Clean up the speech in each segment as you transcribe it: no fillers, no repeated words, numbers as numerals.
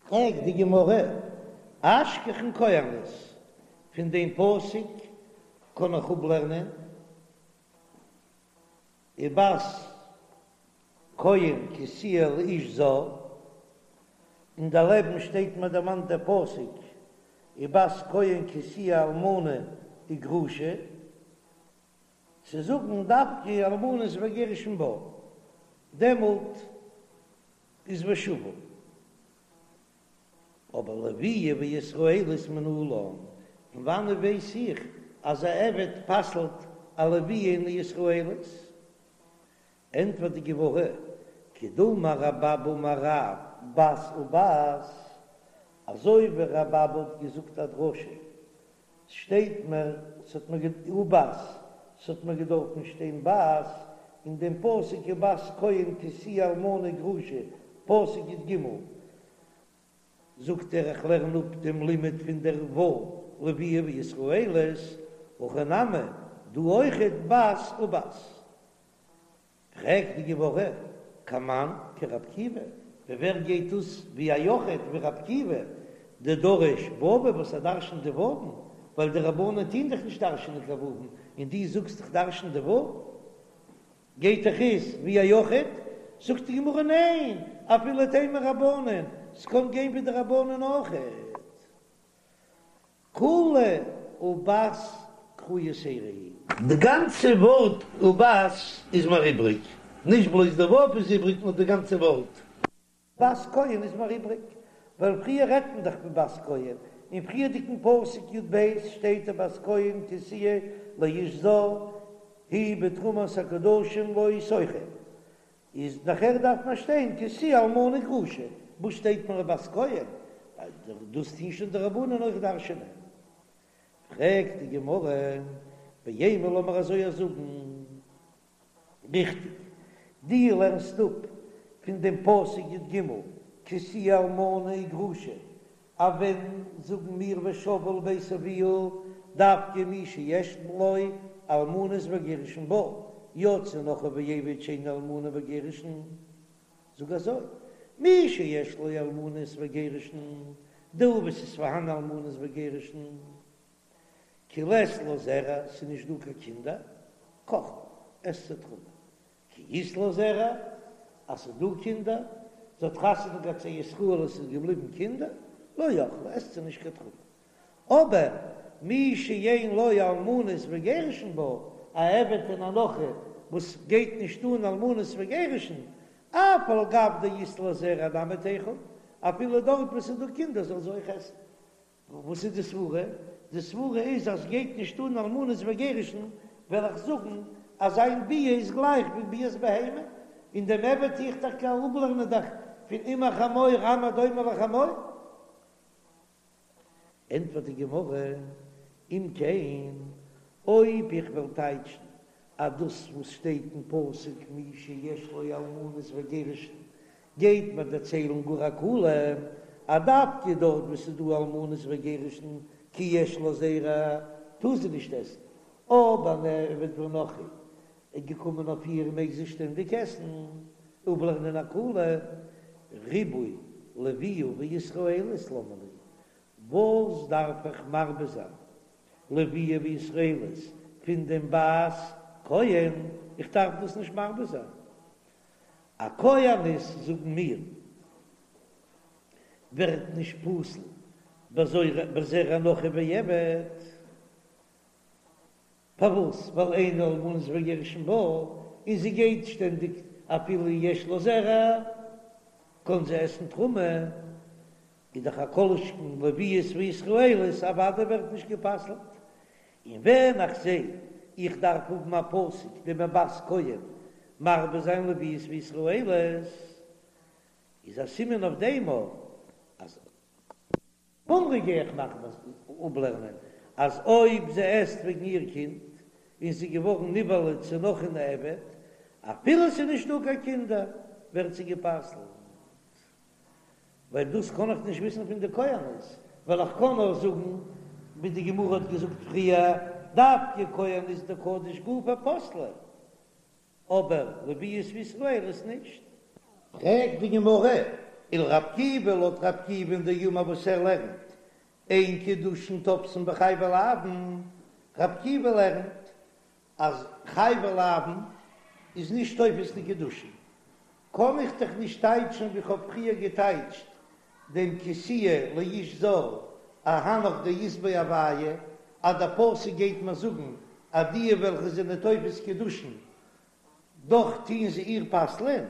פרעגט די גמרא, אשכחן כהנת, פון דעם פסוק קען איך אפלערנען ובת כהן כי תהיה לאיש זר, און דערלעבן שטייט מיר דערמאנט דער פסוק ובת כהן כי תהיה אלמנה וגרושה, צו זאגן דווקא אלמנות וגירושין בה, דעמאלט איז ושבה. אבער לוויה וישראלית מנלן, פון וואנעט ווייס איך אז א עבד פסל'ט א לוויה און א ישראלית? ענטפערט די גמרא, כדאמר רבי אבא אמר רב בת ובת, אזוי ווי רבי אבא האט געזאגט א דרשה, ס'שטייט מיר, ס'האט מיר ובת, ס'האט מיר געדארפן שטיין בת, אין דעם פסוק ובת כהן כי תהיה אלמנה וגרושה, פסוק י"ג, זאגט ער איך לערן אפ דעם לימוד פון דער ו' לוויה וישראלית, הכא נמי, דא אויכעט בת ובת. פרעגט די גמרא, כמאן כרבי עקיבא, ווי ווער גייט דאס ווי א יחיד ווי רבי עקיבא, דדריש וואווי וואס ער דרשנט די וואוון, ווייל די רבנן טוהן דאך נישט דרשנען קיין וואוון, און דו זאגסט איך דרשן די וואוו, גייט דאך אויס ווי א יחיד, זאגט די גמרא ניין, אפילו תימא רבנן, ס'קען גיין ווי די רבנן אויכעט. כולה ובת קרא יתירא היא. די גאנצע ווארט ובת איז מיר איבריג, נישט בלויז די ו' איז איבריג נאר די גאנצע ווארט. בת כהן איז מיר איבריג, ווייל פריער רעדט מען דאך פון בת כהן, אין פריערדיגן פסוק י"ב שטייט ובת כהן כי תהיה לאיש זר היא בתרומת הקדשים לא תאכל, איז נאכער דארף מען שטיין כי תהיה אלמנה וגרושה, וואס שטייט מיר בת כהן? ווייל דאס טוהן שוין די רבנן אויך דרש'ענען. פרעגט די גמרא, ואימא לאמיר אזוי זאגן, ריכטיג, דו לערנסט אפ פון דעם פסוק י"ג כי תהיה אלמנה וגרושה, אז ווען זאגן מיר ושבה אל בית אביה דווקא מי שיש לו אלמנות וגירושין בה, יצא נכרי ועבד שאין אלמנה וגירושין, זאג אזוי, מי שיש לו אלמנות וגירושין, דא וואו ס'איז פארהאן אלמנות וגירושין, כי לית לה זרע, ס'איז נישט דא קיין קינדער, קאכלה, עסט זי תרומה, כי אית לה זרע, אז ס'איז דא קינדער, זי האט חתונה געהאט צו ישראל און ס'איז געבליבן קינדער, לא אכלה, עסט זי נישט קיין תרומה. אבער מי שאין לו אלמנות וגירושין בה, א עבד און א נכרי וואס גייט נישט אן אלמנות וגירושין, אף על גב דאית לה זרע נמי תיכול, אפילו דארט וואו ס'איז דא קינדער זאל זי אויך עסן. וואס איז די סברה? די סברה איז אז גייט נישט אן אלמנות וגירושין, וועל איך זאגן אז זיין ביאה איז גלייך ווי ביאת בהמה, און דעם עבד טו איך טאקע אפלערנען דאך פון אם החמור עם הדומה לחמור. ענטפערט די גמרא, אם כן, אויב איך וועל טייטשן אז דאס וואס שטייט אין פסוק מי שיש לו אלמנות וגירושין גייט מיר דערציילן גאר א קולא אז דווקא דארט וואו ס'איז דא אלמנות וגירושין כי יש לה זרע טאר זי נישט עסן, אבער אן עבד ונכרי איז געקומען אויף איר מעג זי שטענדיג עסן, אפלערנען א קולא ריבוי לוויה וישראלית למה לי, וואס דארף איך מרבה זיין לוויה וישראלית פון דעם בת כהן, איך דארף דאס נישט מרבה זיין. א כהנת זאגן מיר ווערט נישט פסול בזרע נכרי ועבד, פארוואס? ווייל אין אלמנות וגירושין בה, און זי גייט שטענדיג אפילו יש לה זרע קען זי עסן תרומה, איז דאך א כל שכן לוויות וישראליות אוודאי ווערט נישט גע'פסל'ט, און ווען איך זע איך דארף האבן א פסוק דעם ובת כהן מרבה זיין לוויות וישראליות, איז א סימן אויף דעם אויך אז חומרא גיי איך מאכן אפלערנען אז אויב זי עסט וועגן איר קינד און זי איז געווארן נבעלה צו נכרי און עבד, אפילו ס'איז נישטא קיין קינדער ווערט זי גע'פסל'ט. ווייל דאס קען איך נישט וויסן פון די כהנת, ווייל איך קען נאר זאגן ווי די גמרא האט געזאגט פריער, דווקא כהנת דקדיש גופה פסלה, אבער לוויות וישראליות נישט. פרעגט די גמרא. ולר' עקיבא לויט ר' עקיבא'ן דאמר וואס ער לערנט אין קידושין תופסין בחייבי לאוין, ר' עקיבא לערנט אז חייבי לאוין איז נישט תופס די קידושין, קען איך דאך נישט טייטשן ווי כ'האב פריער געטייטשט דעם כי תהיה לאיש זר אהנך דאית ביה הויה, אז דער פסוק גייט מיר זאגן אז די וועלכע זענען תופס קידושין דאך טוען זיי איר פסל'ען,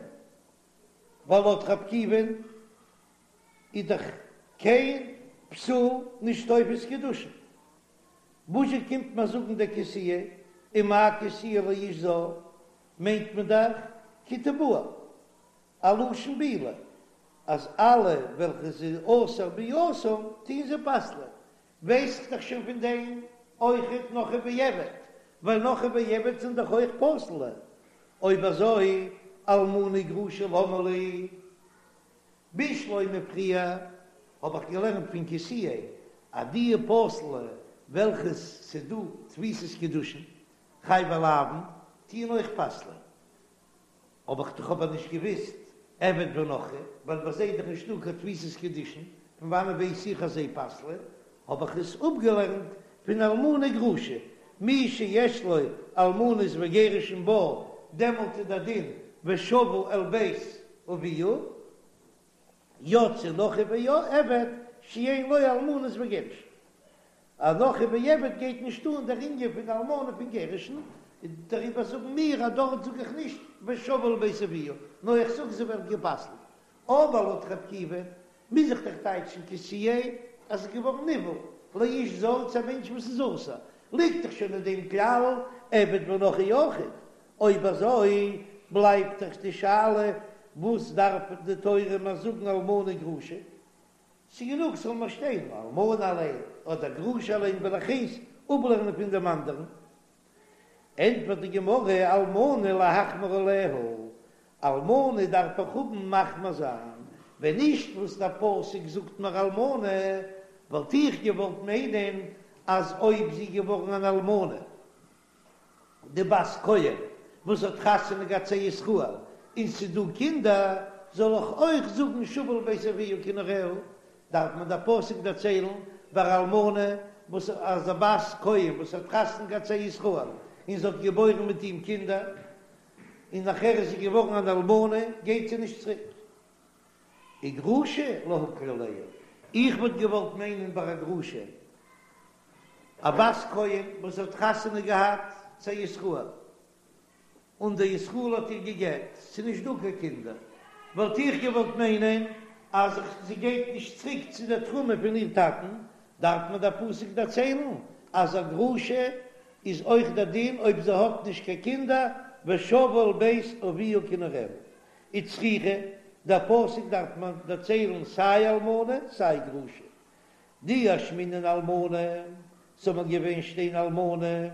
ווייל לויט ר' עקיבא'ן איז דאך קיין פסול נישט תופס קידושין. וואזשע קומט מען זאגן דער כי תהיה, ומאי כי תהיה לאיש זר, מיינט מען דאך כי תבעל, א לשון בעילה, אז אלע וועלכע ס'איז אסור ביאתם טוען זיי פסל'ען, ווייס איך דאך שוין פון דעם אויכעט נכרי ועבד, ווייל נכרי ועבד זענען דאך אויך פסול'ע, אויב אזוי אלמנה גרושה למה לי? בשלמא פריער האב איך געלערנט פון כי תהיה אז די פסול'ע וועלכע ס'דא תפיסת קידושין חייבי לאוין טוען אויך פסל'ען, האב איך דאך אבער נישט געוויסט עבד ונכרי, ווייל ביי זיי איז דאך נישטא קיין תפיסת קידושין, פון וואנען ווייס איך אז זיי פסל'ען? האב איך עס אפגעלערנט פון אלמנה גרושה, מי שיש לו אלמנות וגירושין בה, דעמאלט איז דער דין ושבה אל בית אביה, יצא נכרי ועבד שאין לו אלמנות וגירושין. א נכרי ועבד גייט נישט אן דער ענין פון אלמנה פון גירושין, דעריבער זאגן מיר אז דארט זאג איך נישט ושבה אל בית אביה, נאר איך זאג זי ווערט גע'פסל'ט. אבער לויט ר' עקיבא מוז איך דאך טייטשן כי תהיה אז ס'איז געווארן נבעל לאיש זר צו א מענטש וואס איז אסור, ליגט דאך שוין אין דעם כלל עבד ונכרי אויכעט, אויב אזוי בלייבט דאך די שאלה וואס דארף די תורה מיר זאגן אלמנה גרושה? ס'גענוג ס'זאל מיר שטיין אלמנה אליין אדער גרושה אליין וועל איך איינס אפלערנען פון דעם אנדערן. ענטפערט די גמרא אלמנה להחמיר עליה, אלמנה דארף איך האבן מחמיר זיין, ווען נישט וואס דער פסוק זאגט מיר אלמנה, וואלט איך געוואלט מיינען אז אויב זי איז געווארן אן אלמנה, די בת כהן וואס האט חתונה געהאט צו ישראל און ס'איז דא קינדער, זאל איך אויך זאגן שבה אל בית אביה כנעוריה? דארף מיר דער פסוק דערציילן ביי אלמנה וואס אז א בת כהן וואס האט חתונה געהאט צו ישראל און זי האט געבוירן מיט אים קינדער און נאכער איז זי געווארן אן אלמנה גייט זי נישט צוריק. וגרושה להקל עליה, איך וואלט געוואלט מיינען ביי א גרושה א בת כהן וואס האט חתונה געהאט צו א ישראל, און דער ישראל האט איר גע'גט, ס'איז נישט דא קיין קינדער, וואלט איך געוואלט מיינען אז זי גייט נישט צוריק צו דער תרומה פון איר טאטן, דארף מיר דער פסוק דערציילן אז א גרושה איז אויך דער דין אויב זי האט נישט קיין קינדער, ושבה אל בית אביה כנעוריה. וצריכא, דער פסוק דארף מיר דערציילן סיי אלמנה סיי גרושה, דאי אשמעינן אלמנה, ס'זאל מיר געווען שטיין אלמנה,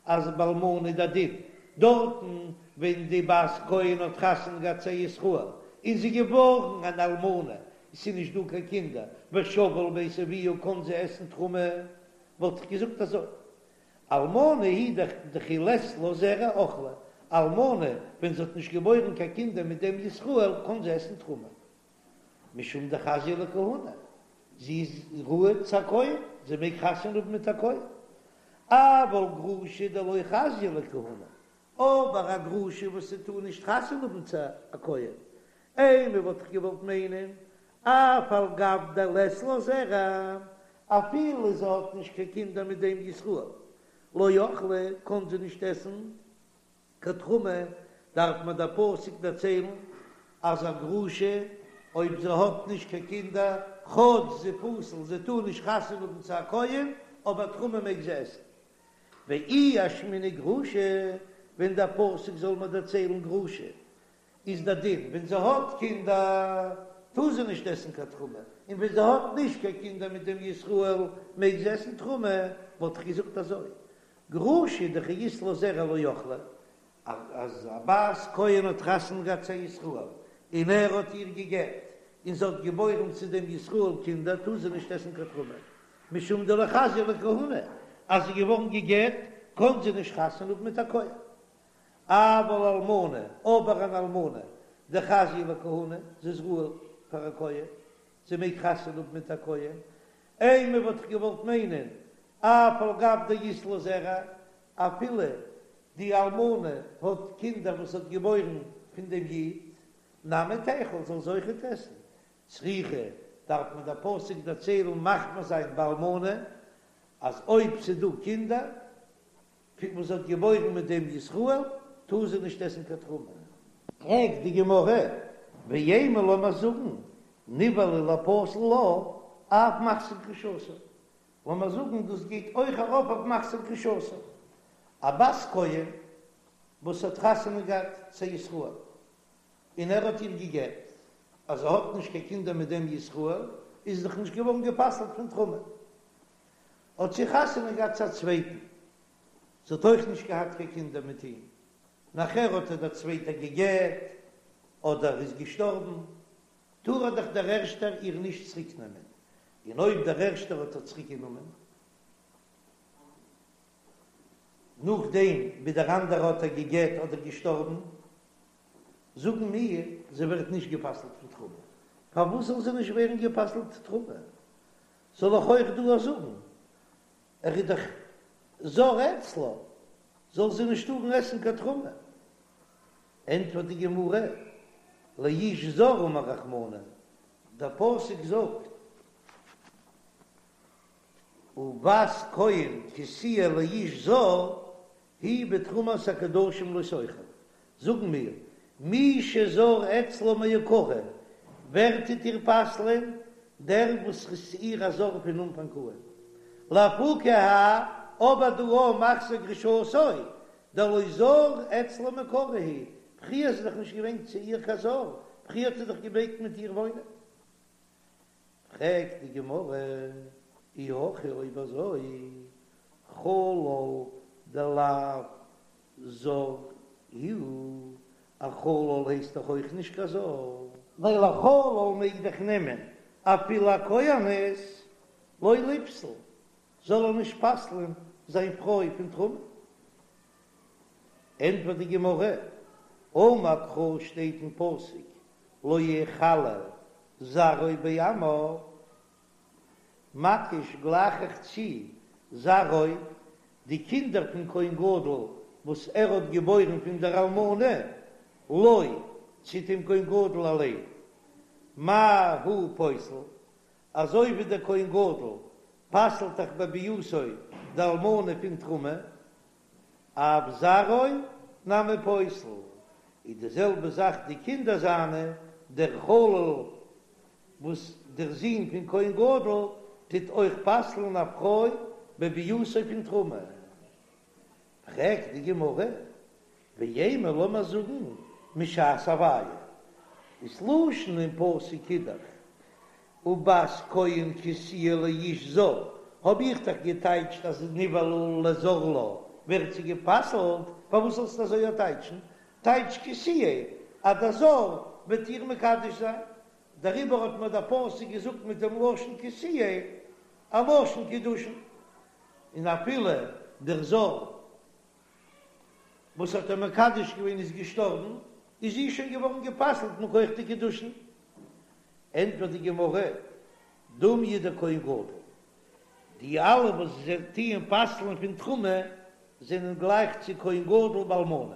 אז ביי אלמנה איז דער דין דארטן ווען די בת כהן האט חתונה געהאט צו ישראל און זי געווארן אן אלמנה, ס'איז נישט דא קיין קינדער, ושבה אל בית אביה קען זי עסן תרומה, וואלט איך געזאגט אזוי, אלמנה היא דכי לית לה זרע אכלה, אלמנה ווען זי האט נישט געבוירן קיין קינדער מיט דעם ישראל קען זי עסן תרומה. משום דחזיא לכהונה, זי איז ראוי צו א כהן, זי מעג חתונה האבן מיט א כהן. אבל גרושה דלא חזיא לכהונה, אבער א גרושה וואס זי טאר נישט חתונה האבן צו א כהן, אימא וואלט איך געוואלט מיינען, אף על גב דלית לה זרע, אפילו זי האט נישט קיין קינדער מיט דעם ישראל, לא אכלה, קען זי נישט עסן קיין תרומה דארף מיר דער פסוק דערציילן אז א גרושה אויב זי האט נישט קיין קינדער, כאטש זי פסול זי טאר נישט חתונה האבן צו א כהן, אבער תרומה מעג זי עסן. ואי אשמעינן גרושה, ווען דער פסוק זאל מיר דערציילן גרושה, איז דער דין ווען זי האט קינדער טאר זי נישט עסן קיין תרומה, און ווען זי האט נישט קיין קינדער מיט דעם ישראל מעג זי עסן תרומה, וואלט איך געזאגט אזוי, גרושה דכי אית לה זרע לא אכלה, אז א בת כהן האט חתונה געהאט צו א ישראל און ער האט איר גע'גט און זי האט געבוירן צו דעם ישראל קינדער טאר זי נישט עסן קיין תרומה משום דלא חזיא לכהונה, אז זי איז געווארן גע'גט קען זי נישט חתונה האבן מיט א כהן. אבל אלמנה, אבער אן אלמנה דחזיא לכהונה, זי איז ראוי. פאר א כהן, זי מעג חתונה האבן מיט א כהן, אימא וואלט איך געוואלט מיינען אף על גב דאית לה זרע, אפילו די אלמנה האט קינדער וואס האט געבוירן פון דעם איד, נמי תיכול זאל זי אויכעט עסן, צריכא דארף מען דער פסוק דערציילן מחמיר זיין באלמנה אז אויב ס'דא קינדער פון וואס זי האט געבוירן מיט דעם ישראל טאר זי נישט עסן קיין תרומה. פרעגט די גמרא, ואימא לאמיר זאגן נבעלה לפסול לה אף מחזיר גרושתו, לאמיר זאגן דאס גייט אויך ארויף אויף מחזיר גרושתו, א בת כהן וואס האט חתונה געהאט צו ישראל און ער האט איר גע'גט, אז זי האט נישט קיין קינדער מיט דעם ישראל, איז זי דאך נישט געווארן גע'פסל'ט פון תרומה. האט זי חתונה געהאט צו א צווייטן, זי האט אויך נישט געהאט קיין קינדער מיט אים, נאכער האט איר דער צווייטער גע'גט אדער איז געשטארבן, טאר ער דאך דער ערשטער איר נישט צוריק נעמען, און אויב דער ערשטער האט איר צוריק גענומען נאכדעם ווי דער אנדערער האט איר גע'גט אדער געשטארבן, זאגן מיר, זי ווערט נישט גע'פסל'ט פון תרומה. פארוואס זאל זי נישט ווערן גע'פסל'ט תרומה? זאל איך אויך דא זאגן, ער איז דאך זר אצלה, זאל זי נישט טארן עסן קיין תרומה? ענטפערט די גמרא, לאיש זר אמר רחמנא, דער פסוק זאגט, ובת כהן כי תהיה לאיש זר, היא בתרומת הקדשים לא תאכל, זאגן מיר, מי שזר אצלה מעיקרא, ווער טוט איר פסל'ען? דער וואס איז צו איר א זר פון אנפאנג אן. לאפוקי האי, אבער דא א מחזיר גרושתו, דלא זר אצלה מעיקרא הוא, פריער איז ער דאך נישט געווען צו איר קיין זר, פריער האט ער דאך געמעגט מיט איר וואוינען. פרעגט די גמרא, אי הכי אויב אזוי, חלל דלאו זר הוא, א חלל הייסט דאך אויך נישט קיין זר. ווייל א חלל מעג דאך נעמען אפילו א כהנת, לא ליפסל, זאל ער נישט פסל'ען זיין פרוי פון תרומה. ענטפערט די גמרא, אמר קרא שטייט אין פסוק לא יחלל זרעו בעמיו, מקיש גלייך איך צו זרעו, די קינדער פון כהן גדול וואס ער האט געבוירן פון דער אלמנה, לו, צו דעם כהן גדול אליין, מה הוא פוסל, אזוי ווי דער כהן גדול פסל'ט דאך בביאתו די אלמנה פון תרומה, אף זרעו נמי פוסל, איז די זעלבע זאך די קינדער זיינע, דער חלל וואס דער זון פון כהן גדול טוט אויך פסל'ן א פרוי בביאתו פון תרומה. פרעגט די גמרא, ואימא לאמיר זאגן משעת הוויה, איז לשון אין פסוק איז דאך ובת כהן כי תהיה לאיש זר, האב איך דאך געטייטשט אז נבעלה לזר לה ווערט זי גע'פסל'ט, פארוואס זאלסטו אזוי טייטשן? טייטש כי תהיה אז דער זר וועט איר מקדש זיין, דעריבער האט מיר דער פסוק געזאגט מיט דעם לשון כי תהיה א לשון קידושין, און אפילו דער זר וואס האט איר מקדש געווען איז געשטארבן, איז זי שוין געווארן גע'פסל'ט מכח די קידושין. ענטפערט די גמרא, דומיא דכהן גדול, די אלע וואס זיי טוען פסל'ן פון תרומה זענען גלייך צו כהן גדול באלמנה,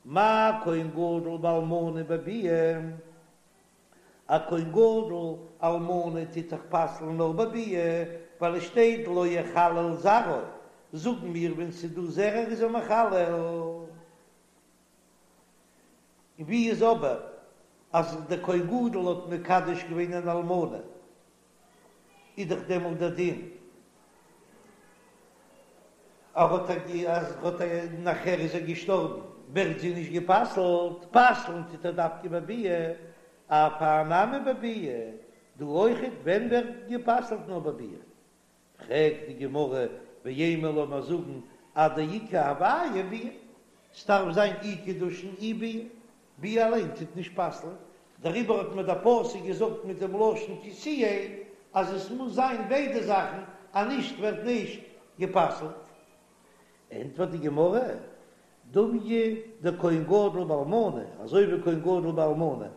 מה כהן גדול באלמנה בביאה, א כהן גדול אלמנה טוט דאך פסל'ן נאר בביאה, ווייל עס שטייט לא יחלל זרעו, זאגן מיר ווען ס'איז דא זרע איז ער מחלל. און ווי איז אבער אז דער כהן גדול האט מקדש געווען אן אלמנה, איז דאך דעמאלט דער דין ער האט אז ער האט נאכער איז ער געשטארבן ווערט זי נישט גע'פסל'ט, פסל'ן טוט ער דווקא בביאה, אף האי נמי בביאה, דא אויכעט ווען ווערט גע'פסל'ט נאר בביאה, פרעגט די גמרא, ואימא לאמיר זאגן עד דאיכא הוויה ביאה, ס'דארף זיין אי קידושין אי ביאה, ביאה אליין טוט נישט פסל'ן, דעריבער האט מיר דער פסוק געזאגט מיט דעם לשון כי תהיה אז עס מוז זיין ביידע זאכן, אז נישט ווערט נישט גע'פסל'ט. ענטפערט די גמרא, דומיא דכהן גדול באלמנה, אזוי ווי כהן גדול באלמנה,.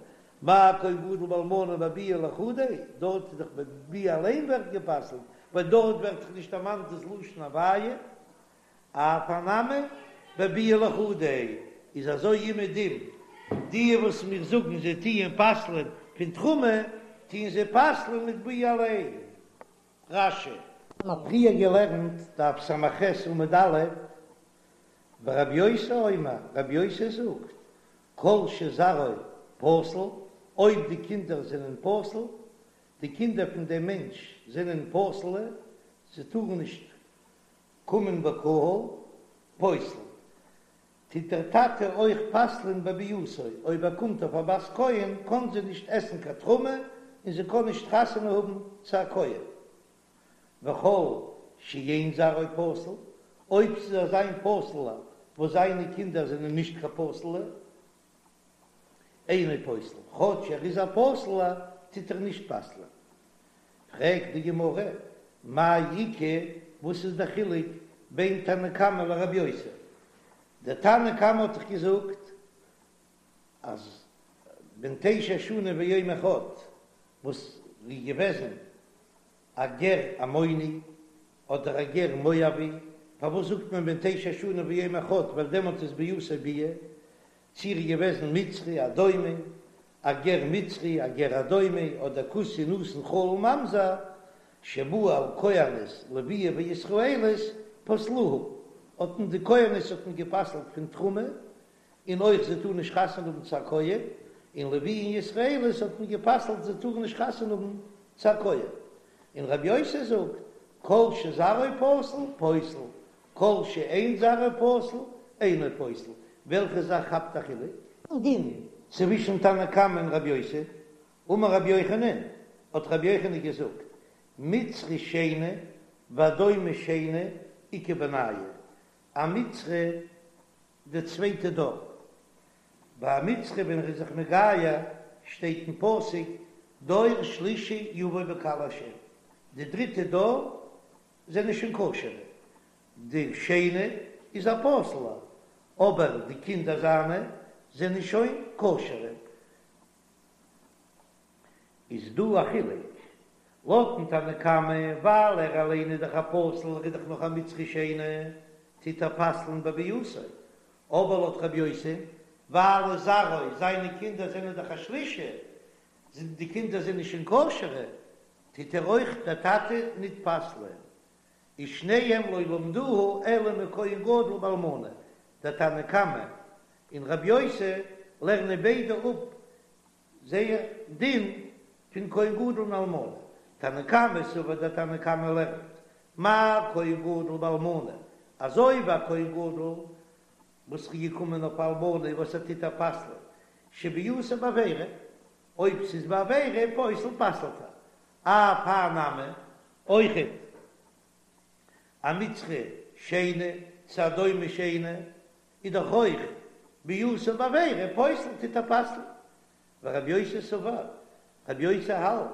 מה כהן גדול באלמנה בביאה לחודיה, דארט איז דאך בביאה אליין ווערט גע'פסל'ט, ווייל דארט ווערט דאך נישט דערמאנט דאס לשון הוויה, אף הא נמי בביאה לחודיה, איז אזוי אומעדום די וואס מיר זאגן זיי טוען פסל'ען פון תרומה, טוען זיי פסל'ען מיט ביאה אליין. רש"י. מ'האט פריער געלערנט דף ס"ח עמוד א', ורבי יוסי אומר, רבי יוסי זאגט, כל שזרעו פסול, אויב די קינדער זענען פסול, די קינדער פון דעם מענטש זענען פסול'ע, זיי טארן נישט קומען בקהל, פוסל, טוט דער טאטע אויך פסל'ען בביאתו, אויב ער קומט אויף א בת כהן קען זי נישט עסן קיין תרומה און זי קען נישט חתונה האבן צו א כהן. וכל שאין זרעו פסול, אויב ס'איז אזא איין פסול'ער וואס זיינע קינדער זענען נישט קיין פסול'ע, אינו פוסל, כאטש ער איז א פסול'ער טוט ער נישט פסל'ען. פרעגט די גמרא, מאי איכא, וואס איז דער חילוק בין תנא קמא לרבי יוסי? דער תנא קמא האט דאך געזאגט אז בן תשע שנים ויום אחד וואס איז געוועזן א גר עמוני אדער א גר מואבי, פארוואס זאגט מען בן תשע שנים ויום אחד ווייל דעמאלט איז ביאתו ביאה, צי ער איז געוועזן מצרי אדומי, א גר מצרי, א גר אדומי, אדער כותי נתין חלל ממזר, שבא על כהנת לוויה וישראלית פסלוה, האט מען די כהנת האט מען גע'פסל'ט פון תרומה, און אויך זיי טארן נישט חתונה האבן צו א כהן, און לוויה און ישראלית האט מען גע'פסל'ט זיי טארן נישט חתונה האבן צו א כהן. און רבי יוסי זאגט, כל שזרעו פסול, פוסל, כל שאין זרעו פסול, אינו פוסל, וועלכע זאך כאפט א חילוק? דין צווישן תנא קמא און רבי יוסי, אמר רבי יוחנן, האט רבי יוחנן געזאגט, מצרי שני ואדומי שני איכא בינייהו, א מצרי די צווייטע דור, ביי א מצרי ווען ער איז זיך מגייר שטייט אין פסוק דור שלישי יבוא בקהל השם, די דריטע דור זענען שוין כשר'ע, די שני איז א פסול'ער, אבער די קינדער זיינע זענען שוין כשר'ע. איז דא א חילוק לויטן תנא קמא, ווייל ער אליין איז דאך א פסול, ער איז דאך נאך א מצרי שני, טוט ער פסל'ן בביאתו, אבער לויט רבי יוסי, ווייל זרעו, זיינע קינדער זענען דאך א שלישי, די קינדער זענען שוין כשר'ע, טוט ער אויך דער טאטע ניט פסל'ען, ושניהם לא למדוה אלא מכהן גדול באלמנה, דער תנא קמא און רבי יוסי לערנען ביידע אפ זייער דין פון כהן גדול און אלמנה, תנא קמא סבר דער תנא קמא לערנט מה כהן גדול באלמנה, אזוי ווי א כהן גדול וואס איז געקומען אויף אלמנה וואס ער טוט איר פסל'ען שביאתה בעבירה, אויב ס'איז בעבירה פוסל פסל'ט ער, אף הא נמי, אויכעט א מצרי שני צו אדומי שני איז דאך אויך ביאתה בעבירה פוסל טוט ער פסל'ן, ורבי יוסי סבר, רבי יוסי האלט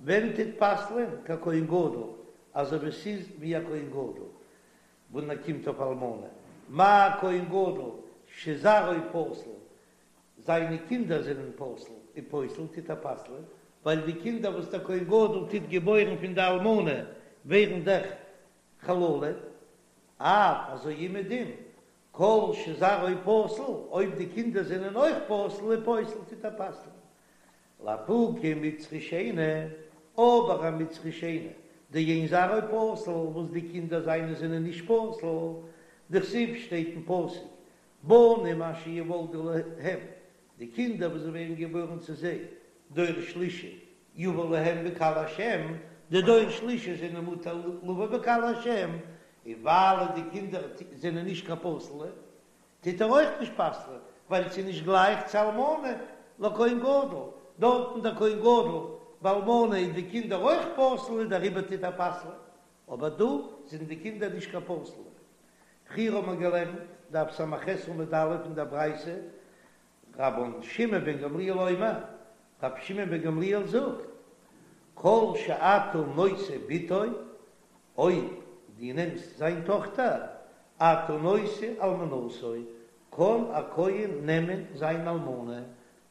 ווען טוט פסל'ען ככהן גדול אזוי ווי ס'איז ווי א כהן גדול ווען ער קומט אויף אלמנה, מה כהן גדול שזרעו פסול זיינע קינדער זענען פסול און פוסל טוט ער פסל'ען, ווייל די קינדער וואס דער כהן גדול טוט געבוירן פון די אלמנה ווערן דאך חללים, אף אזוי אומעדום כל שזרעו פסול, אויב די קינדער זענען אויך פסול און פוסל טוט ער פסל'ען. לאפוקי מצרי שני, אבער א מצרי שני, דאין זרעו פסול, וואס די קינדער זיינע זענען נישט פסול, דכתיב שטייט אין פסוק בנים אשר יולדו להם, די קינדער וואס ווערן געבוירן צו זיי, דור שלישי יבא להם בקהל השם, די דור שלישי זענען מותר לבוא בקהל השם, און ווייל די קינדער זענען נישט קיין פסול'ע, טוט ער אויך נישט פסל'ען, ווייל ס'איז נישט גלייך צו אלמנה לכהן גדול, דארטן דער כהן גדול באלמנה איז די קינדער אויך פסול און דעריבער טוט ער פסל'ען, אבער דא זענען די קינדער נישט קיין פסול'ע. פריער האט מען געלערנט, דף ס"ח עמוד א' אין דער ברייתא, רבן שמעון בן גמליאל אומר, רבי שמעון בן גמליאל זאגט, כל שאתה נושא בתו, אויב דו נעמסט זיין טאכטער, אתה נושא אלמנתו, קען א כהן נעמען זיין אלמנה,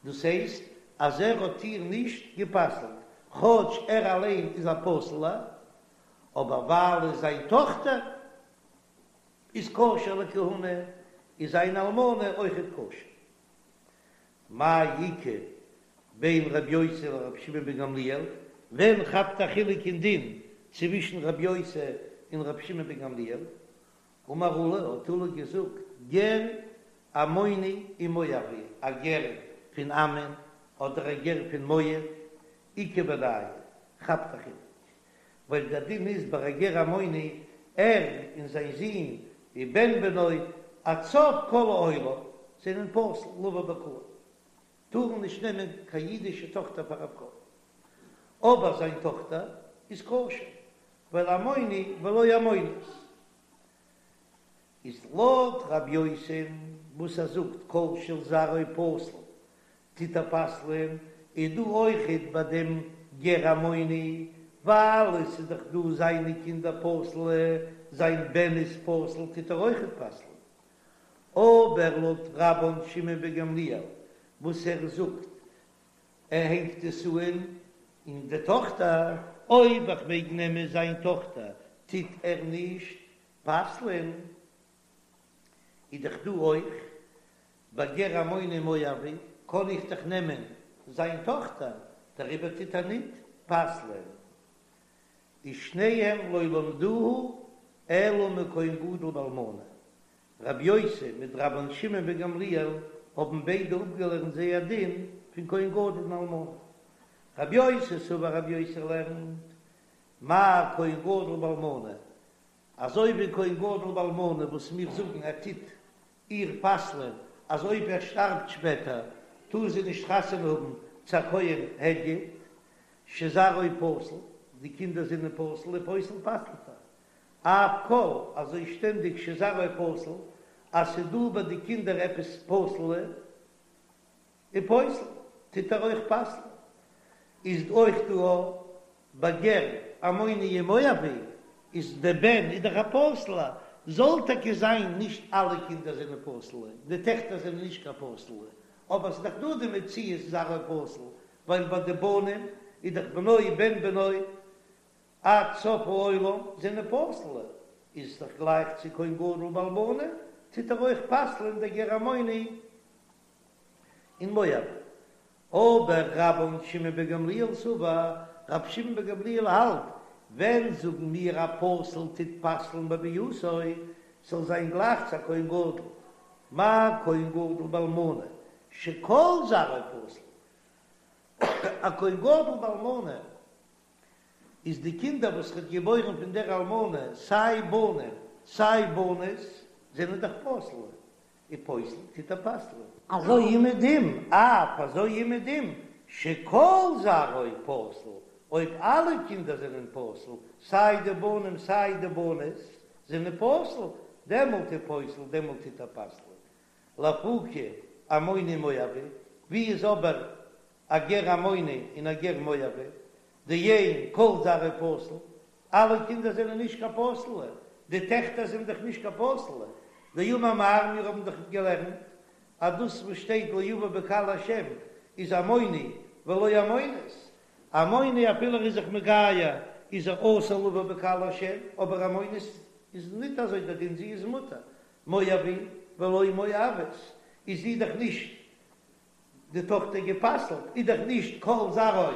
דאס הייסט. אז ער האט איר נישט גע'פסל'ט, כאטש ער אליין איז א פסול'ער, אבער ווייל זיין טאכטער איז כשר לכהונה, איז זיין אלמנה אויכעט כשר. מאי איכא בין רבי יוסי לרבי שמעון בן גמליאל, ווען כאפט א חילוק אין דין צווישן רבי יוסי און רבי שמעון בן גמליאל? אמר עולא, האט עולא געזאגט, גר עמוני ומואבי, א גר פון עמון אדער א גר פון מואב, איכא בינייהו, כאפט א חילוק, ווייל דער דין איז ביי א גר עמוני, ער און זיין זון ובן בנו עד סוף כל העולם זענען פסול לבוא בקהל, טארן נישט נעמען קיין אידישע טאכטער פאר א פרוי, אבער זיין טאכטער איז כשר, ווייל עמוני ולא עמונית. איז לויט רב יוסי'ן וואס ער זאגט כל של זרעו פסול טוט ער פסל'ען, איז דא אויכעט ביי דעם גר עמוני, ווייל עס איז דאך דא זיינע קינדער פסול'ע, זיין בן איז פסול טוט ער אויכעט פסל'ען. אבער לויט רבן שמעון בן גמליאל וואס ער זאגט ער הענגט עס אן אין די טאכטער, אויב איך מעג נעמען זיין טאכטער טוט ער נישט פסל'ען, איז דאך דא אויך ביי גר עמוני ומואבי קען איך דאך נעמען זיין טאכטער, דעריבער טוט ער ניט פסל'ען. ושניהם לא למדוה אלא מכהן גדול באלמנה, רבי יוסי מיט רבן שמעון בן גמליאל האבן ביידע אפגעלערנט זייער דין פון כהן גדול און אלמנה. רבי יוסי סבר רבי יוסי לערנט מה כהן גדול באלמנה, אזוי ווי כהן גדול באלמנה וואס מיר זאגן ער טוט איר פסל'ען אז אויב ער שטארבט שפעטער טאר זי נישט חתונה האבן צו א כהן הדיוט, שזרעו פסול, די קינדער זענען פסול ופוסל פסל'ט ער, אף כל אזוי שטענדיג שזרעו פסול אז ס'דא ביי די קינדער עפעס פסול'ע ופוסל, טוט ער אויך פסל'ן. איז אויך דא א ביי גר עמוני ומואבי, איז דער בן איז דאך א פסול'ער, זאל טאקע זיין נישט אלע קינדער זענען פסול'ע, די טעכטער זענען נישט קיין פסול'ע, אבער ס'איז דאך דא די מציאות זרעו פסול, ווייל ביי די בנים איז דאך בנו בן בנו עד סוף העולם זענען פסול'ע, איז דאך גלייך צו כהן גדול באלמנה, טוט ער אויך פסל'ען דער גר עמוני און מואבי. אבער רבן שמעון בן גמליאל סבר, רבי שמעון בן גמליאל האלט, ווען זאגן מיר א פסול טוט פסל'ן בביאתו, ס'זאל זיין גלייך צו א כהן גדול, מה כהן גדול באלמנה שכל זרעו פסול, א כהן גדול באלמנה איז די קינדער וואס ר'האט געבוירן פון דער אלמנה, סיי בנים סיי בנות, זענען דאך פסול, ופוסל טוט ער פסל'ען. אזוי אומעדום, אף אזוי אומעדום, שכל זרעו פסול, אויב אלע קינדער זענען פסול, סיי די בנים סיי די בנות זענען פסול, דעמאלט ופוסל, דעמאלט טוט ער פסל'ען. לאפוקי עמוני ומואבי, ווי איז אבער א גר עמוני און א גר מואבי, דאין כל זרעו פסול, אלע קינדער זענען נישט קיין פסול'ע, די טעכטער זענען דאך נישט קיין פסול'ע, דאמר מר, מיר האבן דאך געלערנט אז דאס וואס שטייט לא יבא בקהל השם איז עמוני ולא עמונית, עמוני אפילו ער איז זיך מגייר איז ער אסור לבא בקהל השם, אבער עמונית איז ניט אזוי דער דין זי איז מותר, מואבי ולא מואבית איז זי דאך נישט די טאכטער גע'פסל'ט איז דאך נישט כל זרעו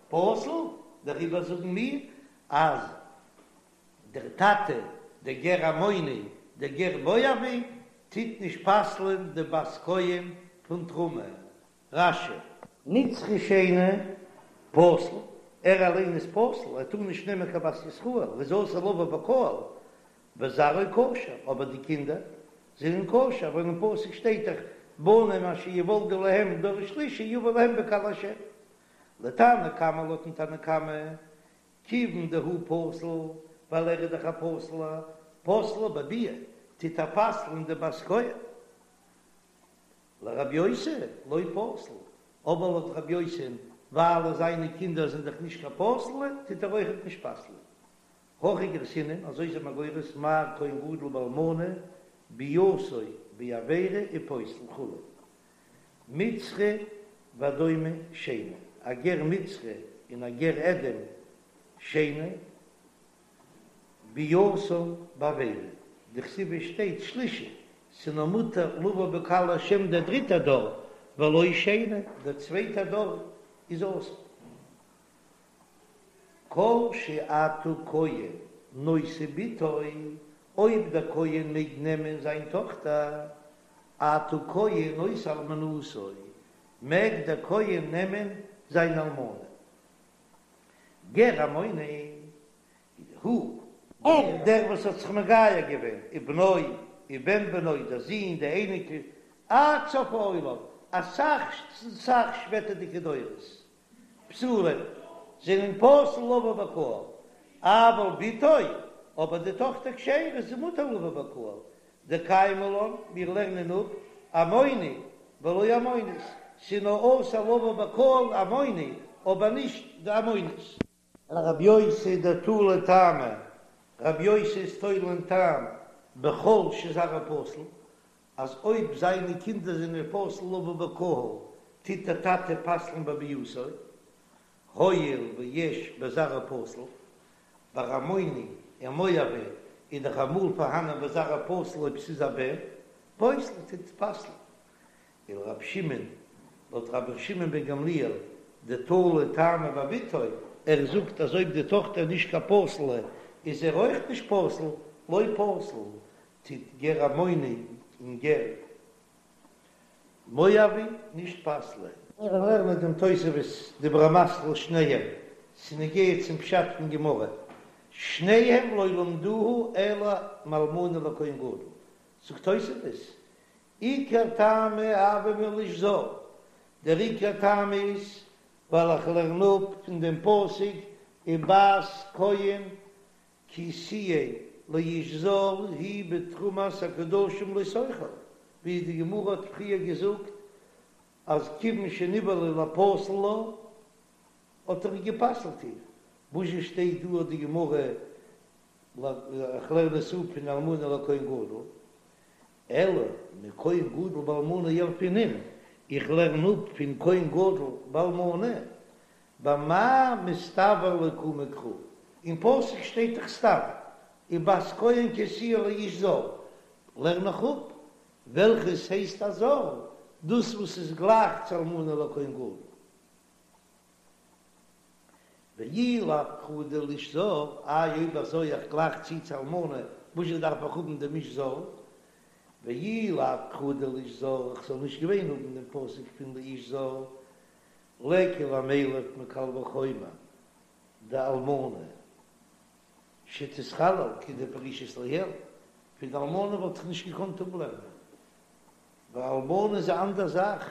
פסול, דעריבער זאגן מיר אז דער טאטע דער גר עמוני דער גר מואבי טוט נישט פסל'ען די בת כהן פון תרומה. רש"י. מצרי שני פסול, ער אליין איז פסול, ער טאר נישט נעמען קיין בת ישראל, ער איז אסור לבוא בקהל, וזרעו כשר, אבער די קינדער זענען כשר, ווייל אין פסוק שטייט דאך בנים אשר יולדו להם דור שלישי יבא להם בקהל השם. לתנא קמא לויטן תנא קמא, כיוון דהוא פסול, ווייל ער איז דאך א פסול'ער, פוסלה בביאה, טוט ער פסל'ן די בת כהן. לרבי יוסי לא פסיל, אבער לויט רבי יוסי'ן, ווייל זיינע קינדער זענען דאך נישט קיין פסול'ע, טוט ער אויכעט נישט פסל'ען. הכי גרסינן, אזוי איז מען גורס מה כהן גדול באלמנה ביאתו בעבירה ופוסל כו'. מצרי. ואדומי שני, א גר מצרי און א גר אדום שני, ביאתן בעבירה, דכתיב עס שטייט שלישי, ס'נאר מותר לבוא בקהל השם דער דריטער דור, ולא שני, דער צווייטער דור איז אסור. כל שאתה כהן נושא בתו, אויב דער כהן מעג נעמען זיין טאכטער, אתה כהן נושא אלמנתו, מעג דער כהן נעמען זיין אלמנה. גר עמוני הוא, ער, דער וואס האט זיך מגייר געווען, ובנו, ובן בנו, דער זון, די אייניקל, עד סוף העולם, אסאך סאך שפעטערדיגע דורות, פסולים, זענען פסול לבוא בקהל, אבל בתו, אבער די טאכטער כשרה איז מותר לבוא בקהל, דקיימא לן, מיר לערנען אפ, עמוני ולא עמונית, ס'איז נאר אסור לבוא בקהל עמוני, אבער נישט די עמונית. לרבי יוסי דתלי טעמא, רבי יוסי איז תולה אין טעם בכל שזרעו פסול, אז אויב זיינע קינדער זענען פסול לבוא בקהל, טוט דער טאטע פסל'ן בביאתו, הואיל ויש בזרעו פסול, ביי עמוני און מואבי איז דאך אמאל פארהאנען בזרעו פסול אויב ס'איז א בן, פוסל טוט פסל'ן. ולרבי שמעון, לויט רבי שמעון בן גמליאל, דתלי טעמא בבתו, ער זאגט אז אויב די טאכטער איז נישט קיין פסול'ע איז ער אויך נישט פסול, לא פסיל, טוט גר עמוני און גר מואבי נישט פסל'ען. מיר לערנען דעם תוספות דיבור המתחיל שניהם, ס'נוגע צום פשט פון גמרא, שניהם לא למדוהו אלא מאלמנה לכהן גדול, זאגט תוספות, עיקר טעמא הוה מלאיש זר, דער עיקר טעם איז ווייל איך לערן אפ פון דעם פסוק ובת כהן כי תהיה לאיש זר היא בתרומת הקדשים לא תאכל, ווי די גמרא האט פריער געזאגט אז כיוון שנבעלה לפסול לה האט ער גע'פסל'ט איר, וואזשע שטייט דא האט די גמרא איך לערן עס אפ פון אלמנה לכהן גדול, אלא מכהן גדול באלמנה ילפינן, איך לערן אפ פון כהן גדול באלמנה, במה מסתבר לאוקמי קרא, אין פסוק שטייט דאך סתם ובת כהן כי תהיה לאיש זר, לערן איך אפ וועלכעס הייסט א זר, דאס וואס איז גלייך צו אלמנה לכהן גדול. ואי לאו קרא דלאיש זר, איי אויב אזוי איך גלייך צו צו אלמנה, וואזשע דארף איך האבן דעם איש זר? ואי לאו קרא דלאיש זר, איך זאל נישט געווען האבן דעם פסוק פון לאיש זר, ליכא למילף מקל וחומר דאלמנה שתתחלל כדפרישית לעיל, פון די אלמנה וואלט איך נישט געקאנט אפלערנען, ווייל אלמנה איז א אנדער זאך,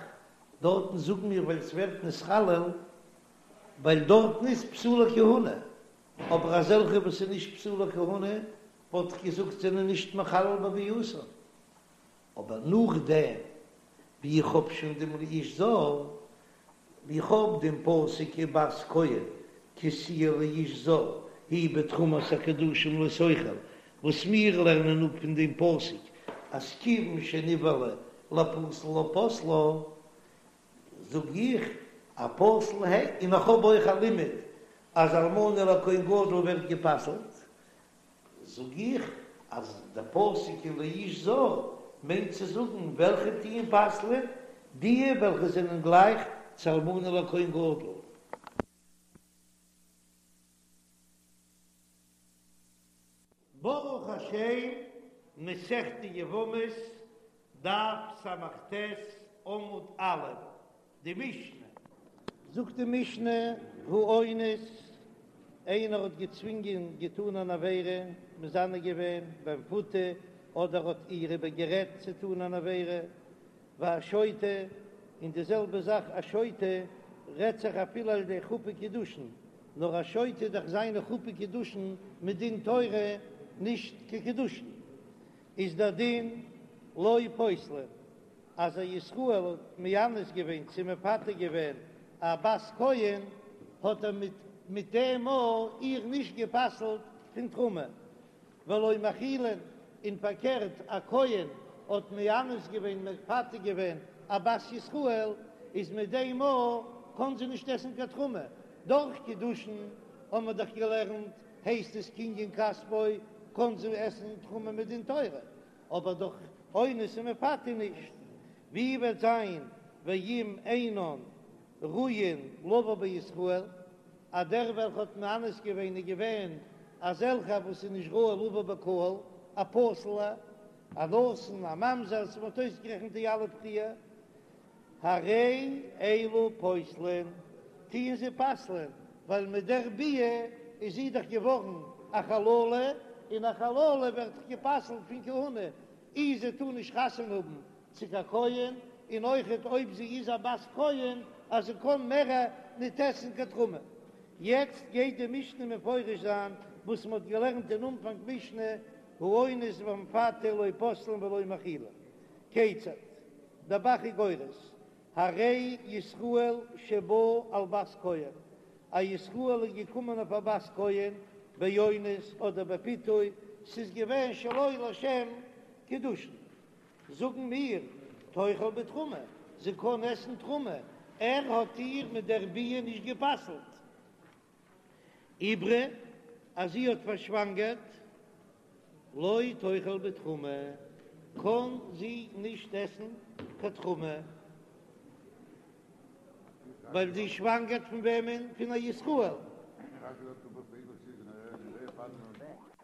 דארטן זאגן מיר ווייל ס'ווערט נתחלל, ווייל דארטן איז פסולי כהונה, אבער אזעלכע וואס איז נישט פסולי כהונה וואלט איך געזאגט זענען נישט מחלל בביאתן, אבער נאכדעם ווי איך האב שוין דעם לאיש זר, ווי איך האב דעם פסוק ובת כהן כי תהיה לאיש זר היא בתרומת הקדשים לא תאכל, וואס מיר לערנען אפ פון דעם פסוק אז כיוון שנבעלה לפסול לה פסלה, זאג איך א פסול ה', און איך האב אויך א לימוד אז אלמנה לכהן גדול ווערט גע'פסל'ט, זאג איך אז דער פסוק ולאיש זר מיינט צו זאגן וועלכע טוען פסל'ען, דיע וועלכע זענען גלייך צו אלמנה לכהן גדול. ברוך השם, מסכת יבמות, דף ס"ט, עמוד א', די משנה. זאגט די משנה, האונס, איינער האט געצווינגען געטאן אן עבירה, מזנה געווען במפותה, אדער האט איר איבער גערעדט צו טאן אן עבירה, והשוטה, און די זעלבע זאך א שוטה רעדט זיך אפילו על ידי חופה קידושין, נאר א שוטה איז דאך זיינע חופה קידושין מדין תורה נישט קיין קידושין, איז דער דין לא פוסלין. אז א ישראל האט מאנס געווען צו מפתה געווען א בת כהן, האט ער מיט מיט דעם מאל איר נישט גע'פסל'ט פון תרומה, ולא מאכילין, און פארקערט א כהן האט מאנס געווען מפתה געווען א בת ישראל. איז מיט דעם מאל קען זי נישט עסן קיין תרומה, דורך קידושין האבן מיר דאך געלערנט הייסט עס קנין כספו קען זי עסן תרומה מדין תורה, אבער דורך אונס און מפתה נישט, ווי וועט זיין ואם אינן ראויין לבא בישראל, אז דער וועלכע האט מאנס געווען איז געווען אזעלכע וואס איז נישט ראוי לבא בקהל, א פסול'ע, א נתין, א ממזר, מען האט אויסגערעכנט די אלע פריער, הרי אלו פוסלין, טוען זיי פסל'ען, ווייל מיט דער ביאה איז זי דאך געווארן א חללה, און א חללה ווערט דאך גע'פסל'ט פון כהונה, אי זי טאר נישט חתונה האבן צו קיין כהן, און אויכעט אויב זי איז א בת כהן אז זי קען מער ניט עסן קיין תרומה. יעצט גייט די משנה מפרש זיין וואס מען האט געלערנט אין אנפאנג משנה, האונס והמפתה לא פוסלין ולא מאכילין. כיצד? דער ב"ח איז גורס, הרי ישראל שבא על בת כהן, א ישראל איז געקומען אויף א בת כהן באונס אדער בפיתוי, ס'איז געווען שלא לשם קידושין, זאגן מיר, תאכל בתרומה, זי קען עסן תרומה, ער האט איר מיט דער ביאה נישט גע'פסל'ט. עיברה, אז זי האט פארשוואנגערט, לא תאכל בתרומה, קען זי נישט עסן קיין תרומה, ווייל זי שוואנגערט פון וועמען? פון א ישראל.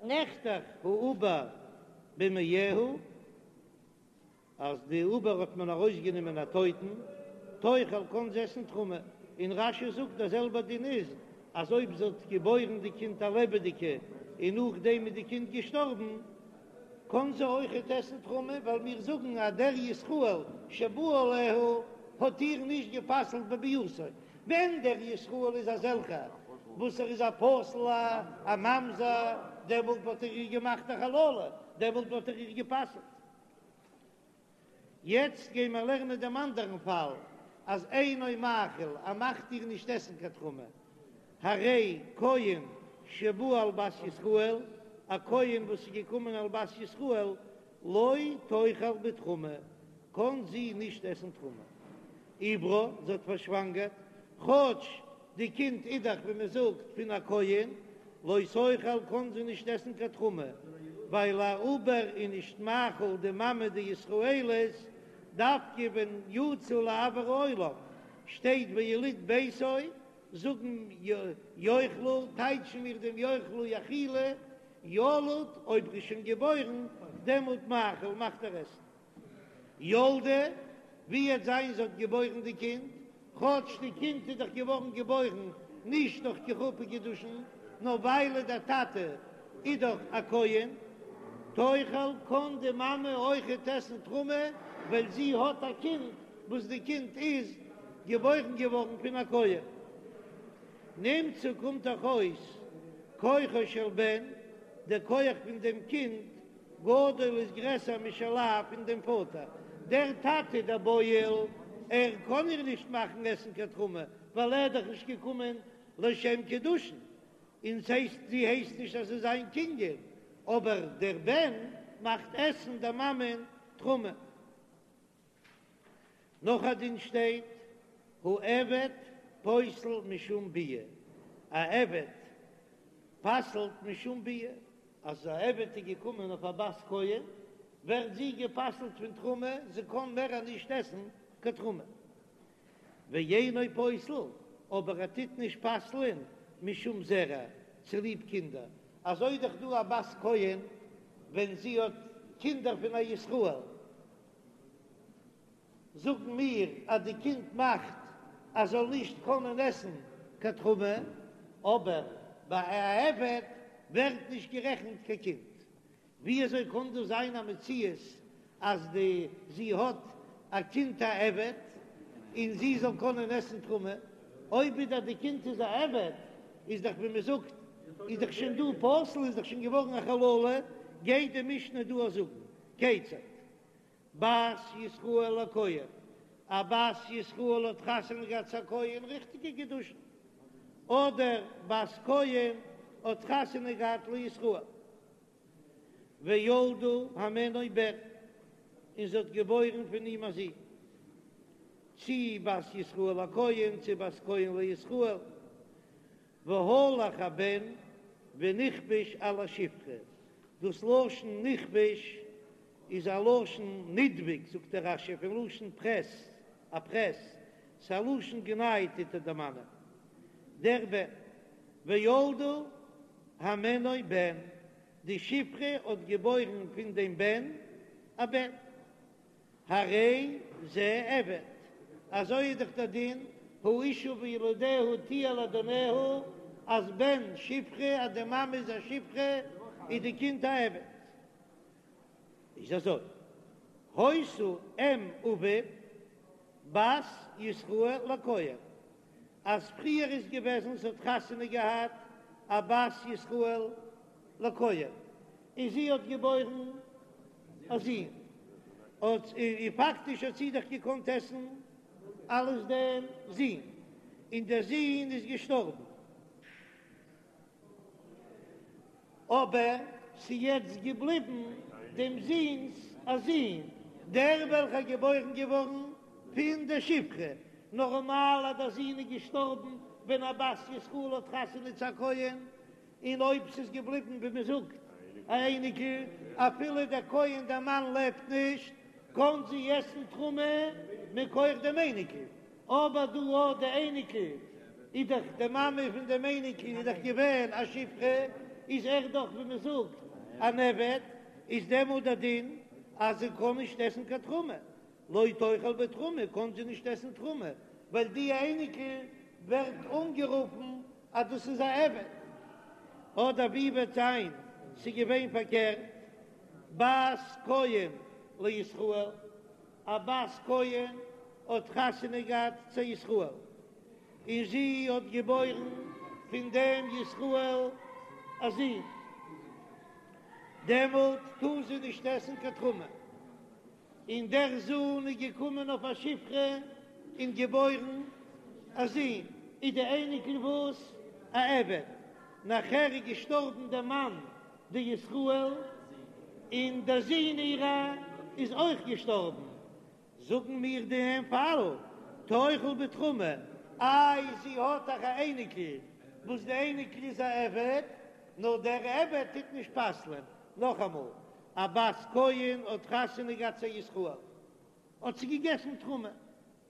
נחתך העובר במעיה, אז די עובר האט מען ארויסגענומען א טויטן, תאכל קען זי עסן תרומה, און רש"י זאגט דער זעלבער דין איז אז אויב זי האט געבוירן די קינד א לעבעדיגע און נאכדעם איז די קינד געשטארבן קען זי אויכעט עסן תרומה, ווייל מיר זאגן אז דער ישראל שבא עליה האט איר נישט גע'פסל'ט בביאתו, ווען דער ישראל איז אזעלכער וואס ער איז א פסול א ממזר דעמאלט וואלט ער איר געמאכט א חללה, דעמאלט וואלט ער איר גע'פסל'ט. יעצט גיי מיר לערנען דעם אנדערן פאל, אז אינו מאכיל, ער מאכט איר נישט עסן קיין תרומה, הרי כהן שבא על בת ישראל, א כהן וואס איז געקומען על בת ישראל, לא תאכל בתרומה, קען זי נישט עסן תרומה. עיברה, זי האט פארשוואנגערט, כאטש די קינד איז דאך ווי מען זאגט פון א כהן, לא תאכל קען זי נישט עסן קיין תרומה, ווייל א עובר איז נישט מאכיל די מאמע די ישראלית, דווקא ווען יצא לאויר העולם שטייט ויליד ביתו, זאגן יאכלו, טייטשן מיר דעם יאכלו יאכילו, ילוד אויב ער איז שוין געבוירן דעמאלט מאכיל מאכט ער עסן. ילדה, ווי וועט זיין זי האט געבוירן די קינד, כאטש די קינד איז דאך געווארן געבוירן נישט דורך קיין חופה קידושין, נאר ווייל דער טאטע איז דאך א כהן, תאכל קען די מאמע אויכעט עסן תרומה, ווייל זי האט א קינד וואס די קינד איז געבוירן געווארן פון א כהן. נמצא קומט דאך אויס כוחו של בן, דער כח פון דעם קינד גדול איז גרעסער משל אב פון דעם פאטער, דער טאטע דער בועל, ער קען איר נישט מאכן עסן קיין תרומה, ווייל ער איז דאך נישט געקומען לשם קידושין, און ס'הייסט זי הייסט נישט אז ס'איז זיין קנין, אבער דער בן מאכט עסן דער מאמען תרומה. נאך א דין שטייט, העבד פוסל משום ביאה, א עבד פסל'ט משום ביאה, אז א עבד איז געקומען אויף א בת כהן, ווערט זי גע'פסל'ט פון תרומה, זי קען מער נישט עסן קיין תרומה. ואינו פוסל, אבער ער טוט נישט פסל'ען משום זרע, צוליב קינדער, אזוי דאך דא א בת כהן ווען זי האט קינדער פון א ישראל, זאגן מיר אז די קינד מאכט אז זאל נישט קענען עסן קיין תרומה, אבער ביי א עבד ווערט נישט גערעכנט קיין קינד. ווי אזוי קען דאס זיין א מציאות אז די זי האט א קינד א עבד און זי זאל קענען עסן תרומה? אויב איז דאך די קינד איז א עבד איז דאך ווי מען זאגט איז דאך שוין דא פסול איז דאך שוין געווארן א חללה, גייט די משנה דא זאגן כיצד? בת ישראל לכהן, א בת ישראל האט חתונה געהאט צו א כהן, ריכטיגע קידושין, אדער בת כהן האט חתונה געהאט לישראל, וילדה הימנו בן, און זי האט געבוירן פון אים א זון. צי בת ישראל לכהן צי בת כהן לישראל, והלך הבן ונכבש על השפחה, דאס לשון נכבש איז א לשון נדבק זאגט דער רש"י פון לשון פרעס, א פרעס, ס'איז א לשון גנאי טוט ער דערמאנען דער בן, וילדה הימנו בן, די שפחה האט געבוירן פון דעם בן א בן. הרי זה עבד, אזוי איז דאך דער דין, האשה וילדיה תהיה לאדוניה, אז בן שפחה, אז די מאמע איז א שפחה, איז די קינד א עבד. איז אזוי, היתה אם אביו בת ישראל לכהן, אז פריער איז געוועזן ס'האט חתונה געהאט א בת ישראל לכהן, און זי האט געבוירן א זון, האט און פאקטיש האט זי דאך געקאנט עסן אלס דעם זון, און דער זון איז געשטארבן, אבער ס'איז יעצט געבליבן דעם זון'ס א זון, דער וועלכער איז געבוירן געווארן פון דער שפחה, נארמאל אז דער זון איז געשטארבן ווען א בת ישראל האט חתונה צו א כהן, און אויב ס'איז געבליבן ווי מען זאגט א אייניקל, אפילו דער כהן דער מאן לעבט נישט, קען זי עסן תרומה מכח דעם אייניקל, אבער דא אט די אייניקל איז דאך די מאמע פון דעם אייניקל איז דאך געווען א שפחה, איז ער דאך ווי מען זאגט אן עבד, איז דעמאלט דער דין אז זי קען נישט עסן קיין תרומה, לא תאכל בתרומה קען זי נישט עסן תרומה, ווייל די אייניקל ווערט אנגערופן אז דאס איז א עבד. אדער ווי וועט זיין ס'איז געווען פארקערט, בת כהן לישראל, א בת כהן האט חתונה געהאט צו ישראל, און זי האט געבוירן פון דעם ישראל א זון, דעמאלט טאר זי נישט עסן קיין תרומה. און דער זון איז געקומען אויף א שפחה און געבוירן א זון, איז די אייניקל וואס? א עבד. נאכער איז געשטארבן דער מאן די ישראל, און דער זון אירע איז אויך געשטארבן. זאגן מיר דעם פאל, תאכל בתרומה, איי זי האט דאך א אייניקל וואס די אייניקל איז א עבד, נאר דער עבד טוט נישט פסל'ען. נאכאמאל, א בת כהן האט חתונה געהאט צו א ישראל, האט זי געגעסן תרומה?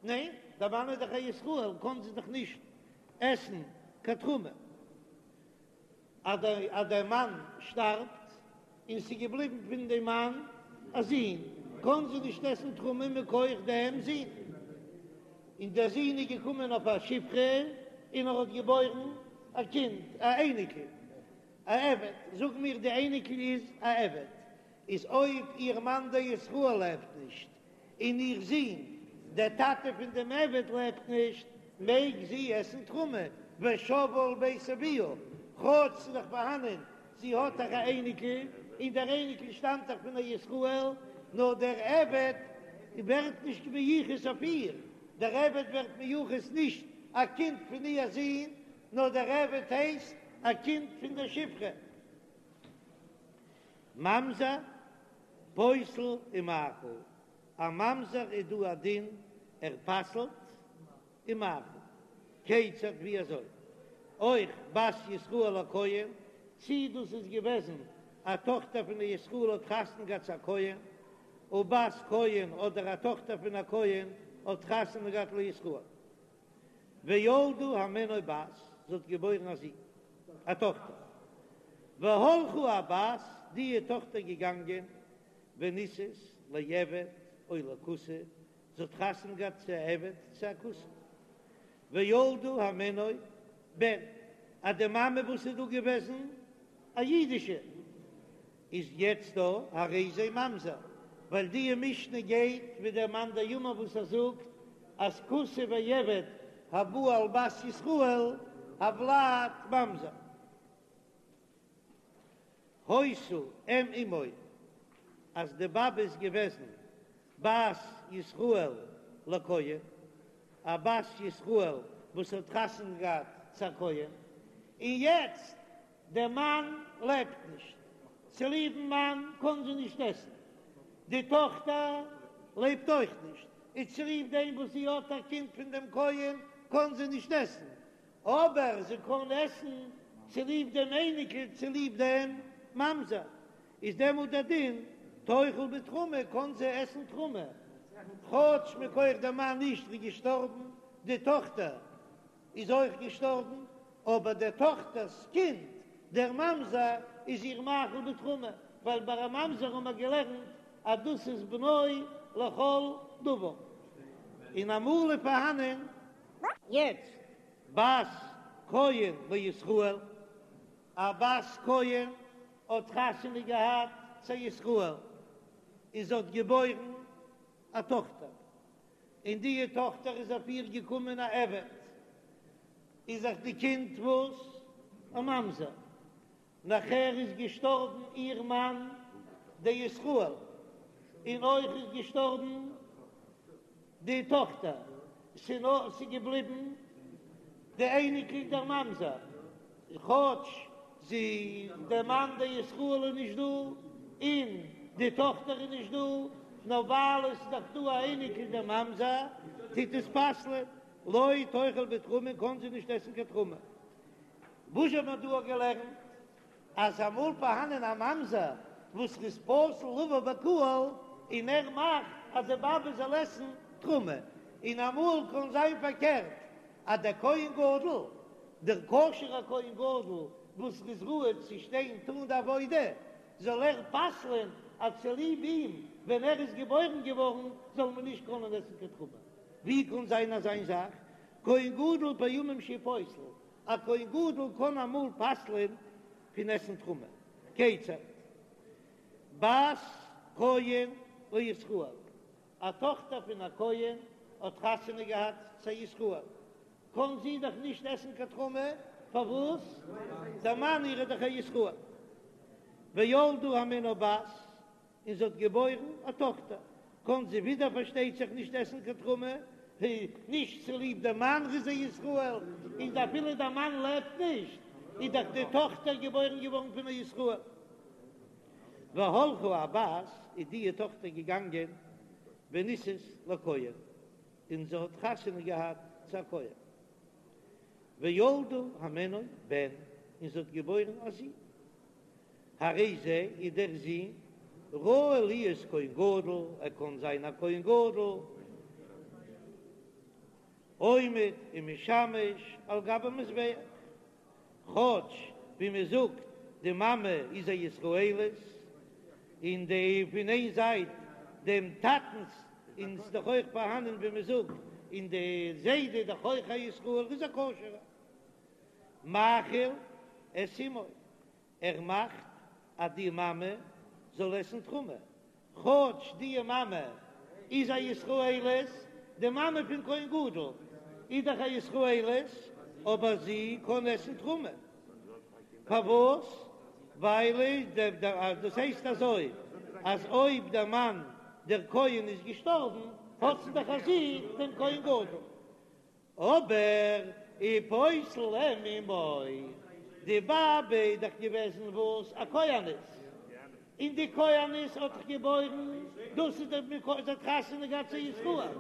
ניין, דער מאן איז דאך א ישראל, קען זי דאך נישט עסן קיין תרומה. אז דער מאן שטארבט און ס'איז געבליבן פון דעם מאן א זון, קען זי נישט עסן תרומה מכח דעם זון. און דער זון איז געקומען אויף א שפחה און ער האט געבוירן א קינד, א אייניקל. א עבד, זאג מיר די אייניקל איז א עבד, איז אויב איר מאן דער ישראל לעבט נישט, און איר זון דער טאטע פון דעם עבד לעבט נישט, מעג זי עסן תרומה, ושבה אל בית אביה, כאטש ס'איז דאך פארהאנען, זי האט דאך א אייניקל, און דער אייניקל שטאמט דאך פון א ישראל, נאר דער עבד ווערט נישט מיוחס אויף איר, דער עבד ווערט מיוחס נישט א קינד פון איר זון, נאר דער עבד הייסט א קינד פון דער שפחה. ממזר פוסל ומאכיל, א ממזר איז דא א דין ער פסל'ט און מאכיל. כיצד ווי אזוי? אויך בת ישראל לכהן, צי דאס איז געוועזן א טאכטער פון א ישראל האט חתונה געהאט צו א כהן, ובת כהן אדער א טאכטער פון א כהן האט חתונה געהאט לישראל. וילדה הימנו בת, זי האט געבוירן א זון, א טאכטער. והלכה הבת, די טאכטער געגאנגען, ונישאת לעבד או לכותי, זי האט חתונה געהאט צו א עבד צו א כותי. וילדה הימנו בן, אז די מאמע וואס איז דא געוועזן א אידישע, איז יעצט דא הרי זה ממזר, ווייל די משנה גייט ווי דער מאן דאמר וואס ער זאגט אז כותי ועבד הבא על בת ישראל הולד ממזר. היתה אם אמו אז די באבע איז געוועזן בת ישראל לכהן, א בת ישראל וואס האט חתונה געהאט צו א כהן, און יעצט דער מאן לעבט נישט, צוליבן מאן קען זי נישט עסן, די טאכטער לעבט אויך נישט, און צוליב דעם וואס זי האט א קינד פון דעם כהן קען זי נישט עסן, אבער זי קען עסן צוליב דעם אייניקל צוליב דעם ממזר, איז דעמאלט דער דין תאכל בתרומה קען זי עסן תרומה, כאטש מכח דער מאן נישט איז געשטארבן, די טאכטער איז אויך געשטארבן, אבער דער טאכטער'ס קינד דער ממזר איז איר מאכיל בתרומה, ווייל ביי א ממזר האבן מיר געלערנט אז דאס איז בנו לכל דבר, און אמאל איז פארהאנען. יעצט בת כהן לישראל, א בת כהן האט חתונה געהאט צו א ישראל, און זי האט געבוירן א טאכטער, און די טאכטער איז אויף איר געקומען א עבד, איז דאך די קינד וואס? א ממזר. נאכער איז געשטארבן איר מאן דער ישראל, און אויך איז געשטארבן די טאכטער, ס'נאר ס'איז געבליבן די אייניקל דער ממזר, כאטש זי דער מאן דער ישראל איז נישט דא, און די טאכטער איז נישט דא, נאר ווייל עס איז דאך דא א אייניקל דער ממזר, טוט עס פסל'ען, לא תאכל בתרומה קען זי נישט עסן קיין תרומה. וואס האט מען דא געלערנט? אז אמאל פארהאנען א ממזר וואס איז פסול לבוא בקהל און ער מאכט אז די באבע זאל עסן תרומה, און אמאל קען זיין פארקערט אז דער כהן גדול, דער כשר'ער כהן גדול וואס איז ראוי צו שטיין טאן די עבודה, זאל ער פסל'ען אז צוליב אים ווען ער איז געבוירן געווארן זאל מען נישט קענען עסן קיין תרומה. ווי קען זיין אזיין זאך? כהן גדול פעמים שהוא פוסל, א כהן גדול קען אמאל פסל'ען פון עסן תרומה. כיצד? בת כהן לישראל, א טאכטער פון א כהן האט חתונה געהאט צו א ישראל, קען זי דאך נישט עסן קיין תרומה, פארוואס? דער מאן איר איז דאך א ישראל. וילדה הימנו בת, און זי האט געבוירן א טאכטער, קען זי ווידער פארשטייט זיך נישט עסן קיין תרומה, נישט צוליב דער מאן איז א ישראל, און אפילו דער מאן לעבט נישט, איז דאך די טאכטער געבוירן געווארן פון א ישראל. והלכה הבת, איז די טאכטער געגאנגען ונישאת לכהן, און זי האט חתונה געהאט צו א כהן. וילדה הימנו בן, און זי האט געבוירן א זון. הרי זה איז דער זון ראוי להיות כהן גדול, ער קען זיין א כהן גדול, עומד ומשמש על גבי מזבח, כאטש ווי מען זאגט די מאמע איז א ישראלית, און די פון איין זייט דעם טאטנס און ס'איז דאך אויך פארהאנען ווי מען זאגט און די זיידע איז דאך אויך א ישראל איז א כשר'ער. מאכיל את אמו, ער מאכט אז די מאמע זאל עסן תרומה, כאטש די מאמע איז א ישראלית, די מאמע פון כהן גדול איז דאך א ישראלית, אבער זי קען עסן תרומה, פארוואס? ווייל דאס הייסט אזוי אז אויב דער מאן דער כהן איז געשטארבן האט זי דאך א זון דעם כהן גדול, אבער ופוסל אם אמו, די באבע איז דאך געוועזן וואס? א כהנת, און די כהנת האט דאך געבוירן, דאס איז דער מקור, זי האט חתונה געהאט צו ישראל,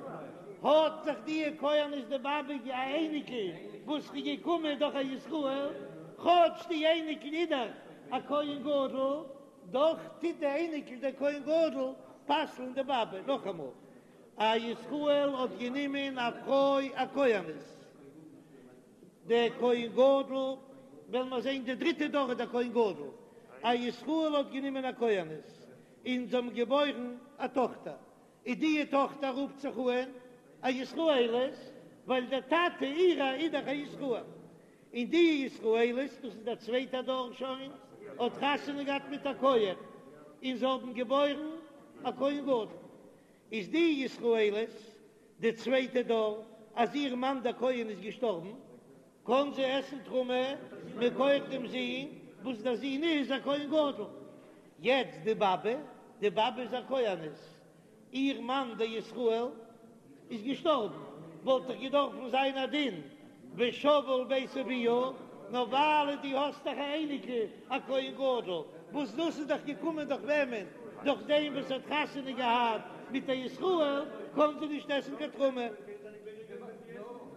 האט דאך די כהנת די באבע א אייניקל וואס איז געקומען דורך א ישראל, כאטש די אייניקל איז דאך א כהן גדול, דאך טוט די אייניקל דער כהן גדול פסל'ן די באבע, נאכאמאל, א ישראל האט גענומען א פרוי א כהנת, דער כהן גדול, וועלן מיר זען די דריטע דור איז דער כהן גדול, א ישראל האט גענומען א כהנת און זיי האבן געבוירן א טאכטער, איז די טאכטער רופט זיך אן א ישראלית, ווייל דער טאטע אירע איז דאך א ישראל, און די ישראלית, דאס איז דער צווייטער דור שוין, האט חתונה געהאט מיט א כהן, און זיי האבן געבוירן א כהן גדול. איז די ישראלית די צווייטע דור אז איר מאן דער כהן איז געשטארבן, קען זי עסן תרומה מכח דעם זון וואס דער זון איז א כהן גדול. יעצט די באבע, די באבע איז א כהנת, איר מאן דער ישראל איז געשטארבן, וואלט דאך געדארפן זיין א דין ושבה אל בית אביה. נאר ווייל דו האסט דאך א אייניקל א כהן גדול, וואס דאס איז דאך געקומען דורך וועמען? דורך דעם וואס האט חתונה געהאט מיט א ישראל, קען זי נישט עסן קיין תרומה.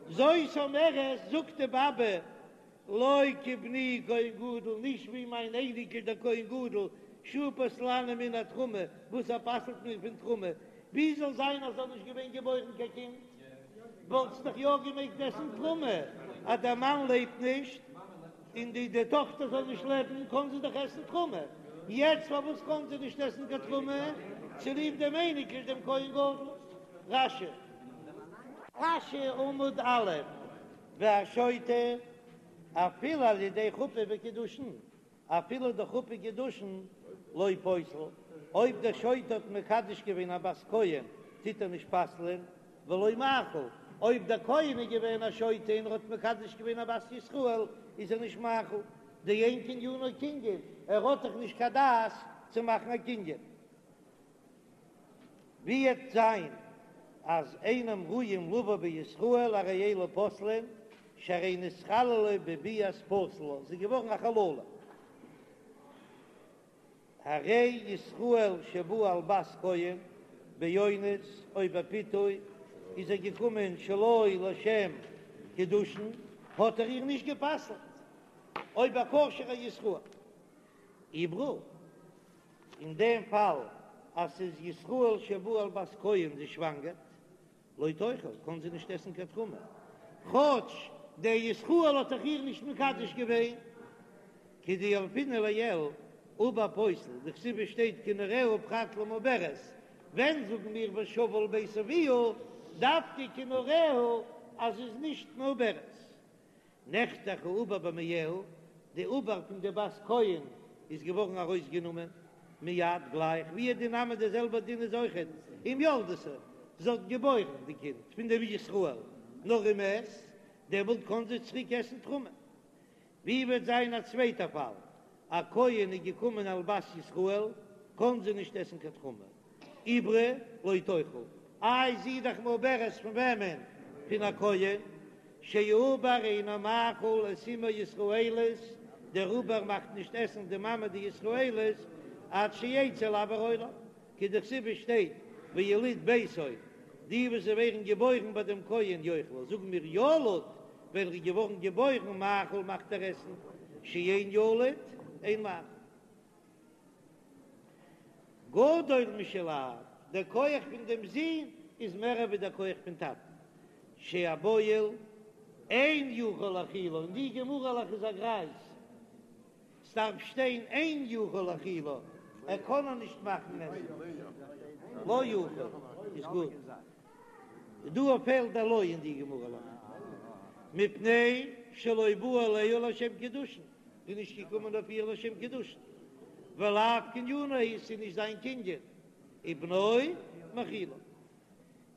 זאת אומרת, זאגט די באבע, לא כבני כהן גדול, נישט ווי מיין אייניקל דער כהן גדול, שהוא פוסלני מן התרומה, וואס ער פסל'ט מיר פון תרומה, ווי זאל זיין אז זאל נישט געווען געבוירן קיין קינד, וואלט זי דאך יא געמעגט עסן תרומה, אז דער מאן לעבט נישט און די די טאכטער זאל נישט לעבן, קען זי דאך עסן תרומה, יעצט פארוואס קען זי נישט עסן קיין תרומה? צוליב דעם אייניקל דעם כהן גדול. רש"י. רש"י עמוד א', והשוטה אפילו על ידי חופה וקידושין, אפילו דורך חופה קידושין לא פוסל, אויב דער שוטה האט מקדש געווען א בת כהן טוט ער נישט פסל'ען, ולא מאכיל, אויב דער כהן איז געווען א שוטה און ער האט מקדש געווען א בת ישראל איז ער נישט מאכיל, דאין קנינו קנין, ער האט דאך נישט קיין דעת צו מאכן א קנין. ווי וועט זיין אז אינם ראויים לבא בישראל הרי אלו פוסלין שהרי נתחללה בביאת פסול לה, זי איז געווארן א חללה. הרי ישראל שבא על בת כהן באונס או בפיתוי איז ער געקומען שלא לשם קידושין האט ער איר נישט גע'פסל'ט אויב א כשר'ע ישראל עוברה. אין דעם פאל אז ס'איז ישראל שבא על בת כהן זי שוואנגערט, לא תאכל, קען זי נישט עסן קיין תרומה, כאטש דער ישראל האט דאך איר נישט מקדש געווען, כדילפינן לעיל, עובר פוסל, דכתיב עס שטייט כנעוריה פרט למעוברת, ווען זאגן מיר ושבה אל בית אביה, דווקא כנעוריה אז זי איז נישט מעוברת. נחתך העובר במעיה, די עובר פון די בת כהן איז געווארן ארויסגענומען מיד גלייך, והוא הדין נמי די זעלבע דין איז אויכעט אם ילדתו, זי האט געבוירן די קינד פון דעם ישראל, נאר ומת, דעמאלט קען זי צוריק עסן תרומה. ווי וועט זיין א צווייטע פאל, א כהן איז געקומען על בת ישראל, קען זי נישט עסן קיין תרומה, עוברה לא תאכל, איי זי איז דאך מעוברת פון וועמען? פון א כהן, שהעובר אינו מאכיל את אמו ישראלית, דער עובר מאכט נישט עסן די מאמע די ישראלית עד שיצא לאויר העולם, כדכתיב עס שטייט ויליד ביתו, די וואס זיי ווערן געבוירן ביי דעם כהן יאכלו, זאגן מיר ילוד, ווען ער איז געווארן געבוירן מאכיל מאכט ער עסן, שאין ילוד אין מאכיל. גדול משל אב, דער כח פון דעם זון איז מער ווי דער כח פון טאטן, שהבועל אין יכול להאכילה, אין די גמרא'לעך איז א גרייז, ס'דארף שטיין אין יכול להאכילה, ער קען איר נישט מאכן עסן, לא יכול איז גוט, דא פעלט דער לא אין די גמרא'לעך, מפני שלא בא עליה לשם קידושין. איז נישט געקומען אויף איר לשם קידושין, ולאו קנינו הוא, ס'איז נישט זיין קנין, ובנו מאכילו.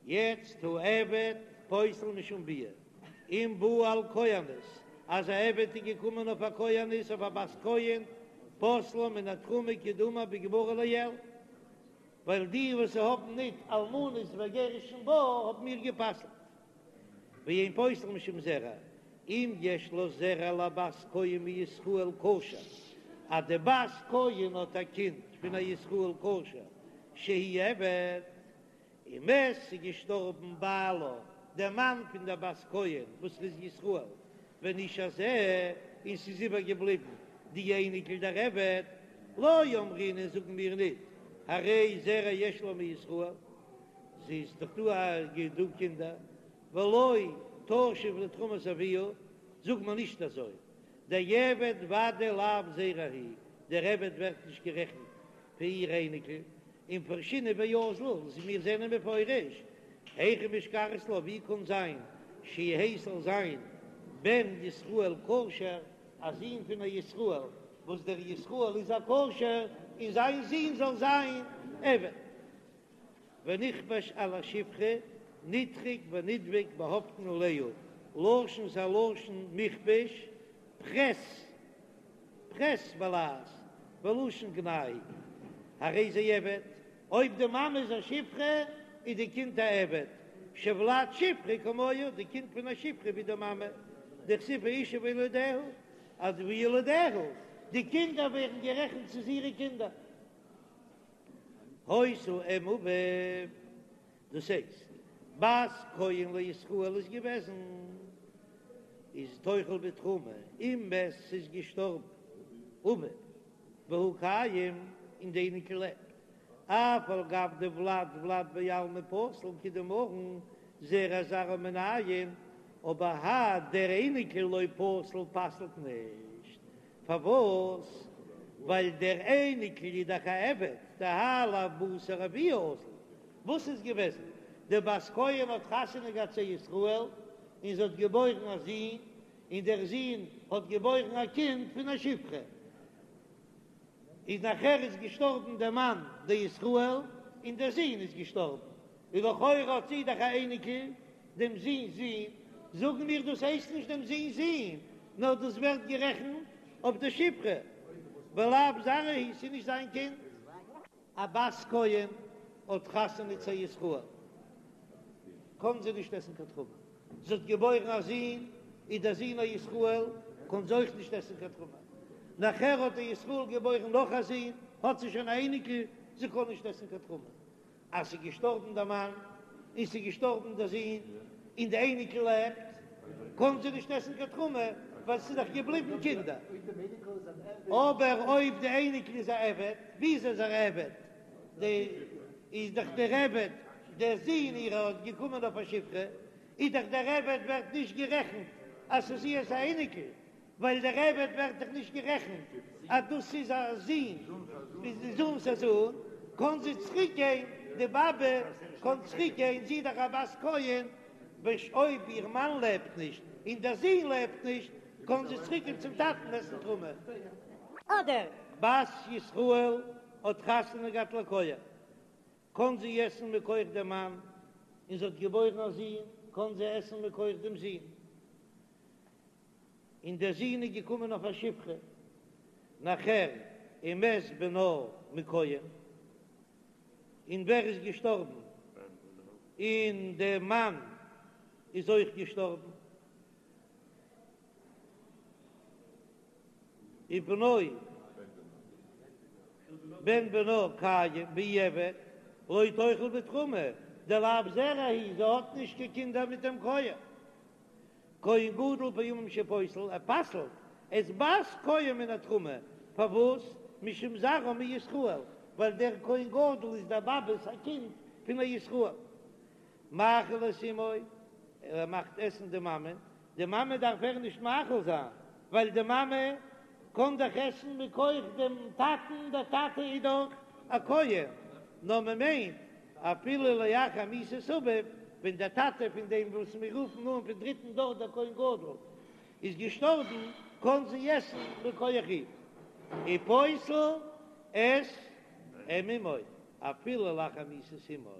יעצט העבד פוסל משום ביאה, אם בא על כהנת, אז א עבד איז געקומען אויף א כהנת, אויף א בת כהן, פוסלה מן התרומה כדאמר בגמרא לעיל, ווייל די וואס האבן ניט אלמנות וגירושין בה האבן מיר גע'פסל'ט. ואין פוסל משום זרע, אם יש לה זרע לבת כהן מישראל כשר, אז די בת כהן האט א קינד פון א ישראל כשר שהוא עבד, ומת ס'איז געשטארבן בעלה דער מאן פון דער בת כהן וואס איז ישראל, ונשאר זה, און ס'איז איבער געבליבן די אייניקל דער עבד, לא אמרינן זאגן מיר ניט, הרי זרע יש לה מישראל. זי איז דאך דא א דא קינדער, ולא תשיב לתרומת אביה, זאגט מען נישט אזוי, דעבד ודאי לאו זרע הוא, דער עבד ווערט נישט גערעכנט פאר איר אייניקל, ומפרשינן ואזיל, מיר זענען מפרש, היכי משכחת לה, ווי קען זיין שיהא ס'זאל זיין בן ישראל כשר, א זון פון א ישראל, וואס דער ישראל איז א כשר, און זיין זון זאל זיין עבד. ונכבש על השפחה, נדחק ונדבק באהאפטן עליה, לשון ס'א לשון מכבש, פרעס, פרעס בלע"ז, ולשון גנאי, הרי זה עבד, אויב די מאמע איז א שפחה איז די קינד א עבד, שהולד שפחה כמוה, די קינד פון א שפחה ווי די מאמע, דכתיב האשה וילדיה. אז וילדיה, די קינדער ווערן גערעכנט ס'איז אירע קינדער. היתה אם אביו, דאס הייסט, בת כהן לישראל איז געוועזן, איז תאכל בתרומה, אם מת ס'איז געשטארבן אביו והוא קיים און די אייניקל לעבט, אף על גב דולד ולד בעלמא פסיל כדאמרן זרע זרעה מנין, אבער האי דער אייניקל לא פסיל פסל'ט נישט, פארוואס? ווייל דער אייניקל איז דאך א עבד, דהאי לאו בתר אבוה אזיל. וואס איז געוועזן? די בת כהן האט חתונה געהאט צו ישראל, און זי האט געבוירן א זון, און דער זון האט געבוירן א קינד פון א שפחה. איז נאכער איז געשטארבן דער מאן דער ישראל, און דער זון איז געשטארבן, און לכאורה האט זי דאך א אייניקל דעם זון'ס זון, זאגן מיר דאס הייסט נישט דעם זון'ס זון, נאר דאס ווערט גערעכנט אויף די שפחה, ולאו זרעה הוא, ס'איז נישט זיין קינד. א בת כהן האט חתונה צו א ישראל, קען זי נישט עסן קיין תרומה, זי האט געבוירן א זון, איז דער זון א ישראל, קען זי אויך נישט עסן קיין תרומה, נאכער האט דער ישראל געבוירן נאך א זון, האט זי שוין א אייניקל, זי קען נישט עסן קיין תרומה. אז ס'איז געשטארבן דער מאן, און ס'איז געשטארבן דער זון, און די אייניקל לעבט, קען זי נישט עסן קיין תרומה, ווייל ס'איז דאך געבליבן קינדער. אבער אויב די אייניקל איז א עבד, וויאזוי איז ער א עבד? די איז דאך דער עבד, דער זון אירער האט געקומען אויף א שפחה, איז דאך דער עבד ווערט נישט גערעכנט אז ס'איז אירס א אייניקל, ווייל דער עבד ווערט דאך נישט גערעכנט אז דאס איז א זון, איז די זון'ס א זון, קען זי צוריק גיין, די באבע קען צוריק גיין, זי איז דאך א בת כהן, אויב איר מאן לעבט נישט און דער זון לעבט נישט, קען זי צוריק גיין צום טאטן עסן תרומה. אדער. בת ישראל האט חתונה געהאט לכהן, קען זי עסן מכח דעם מאן, און זי האט געבוירן א זון, קען זי עסן מכח דעם זון. און דער זון איז געקומען אויף א שפחה, נאכער ומת בנה מכהן, און ווער איז געשטארבן? און דער מאן איז אויך געשטארבן, ובנו בן בנה קיים והוא עבד, לא תאכל בתרומה, דלאו זרעה הוא, זי האט נישט קיין קינדער מיט דעם כהן. כהן גדול פעמים שפוסל, ער פסל'ט את בת כהן מן התרומה, פארוואס? משום זרעה מישראל, ווייל דער כהן גדול איז דער באבע'ס א קינד פון א ישראל. מאכיל את אמו, ער מאכט עסן די מאמע, די מאמע דארף ער נישט מאכיל זיין, ווייל די מאמע קען דאך עסן מכח דעם טאטן, דער טאטע איז דאך א כהן, נאר מען מיינט אפילו לאחר מיתת אביו, ווען דער טאטע פון דעם וואס מיר רופן אן פון דריטן דור דער כהן גדול איז געשטארבן, קען זי עסן מכח אים, ופוסל את אם אמו אפילו לאחר מיתת אמו.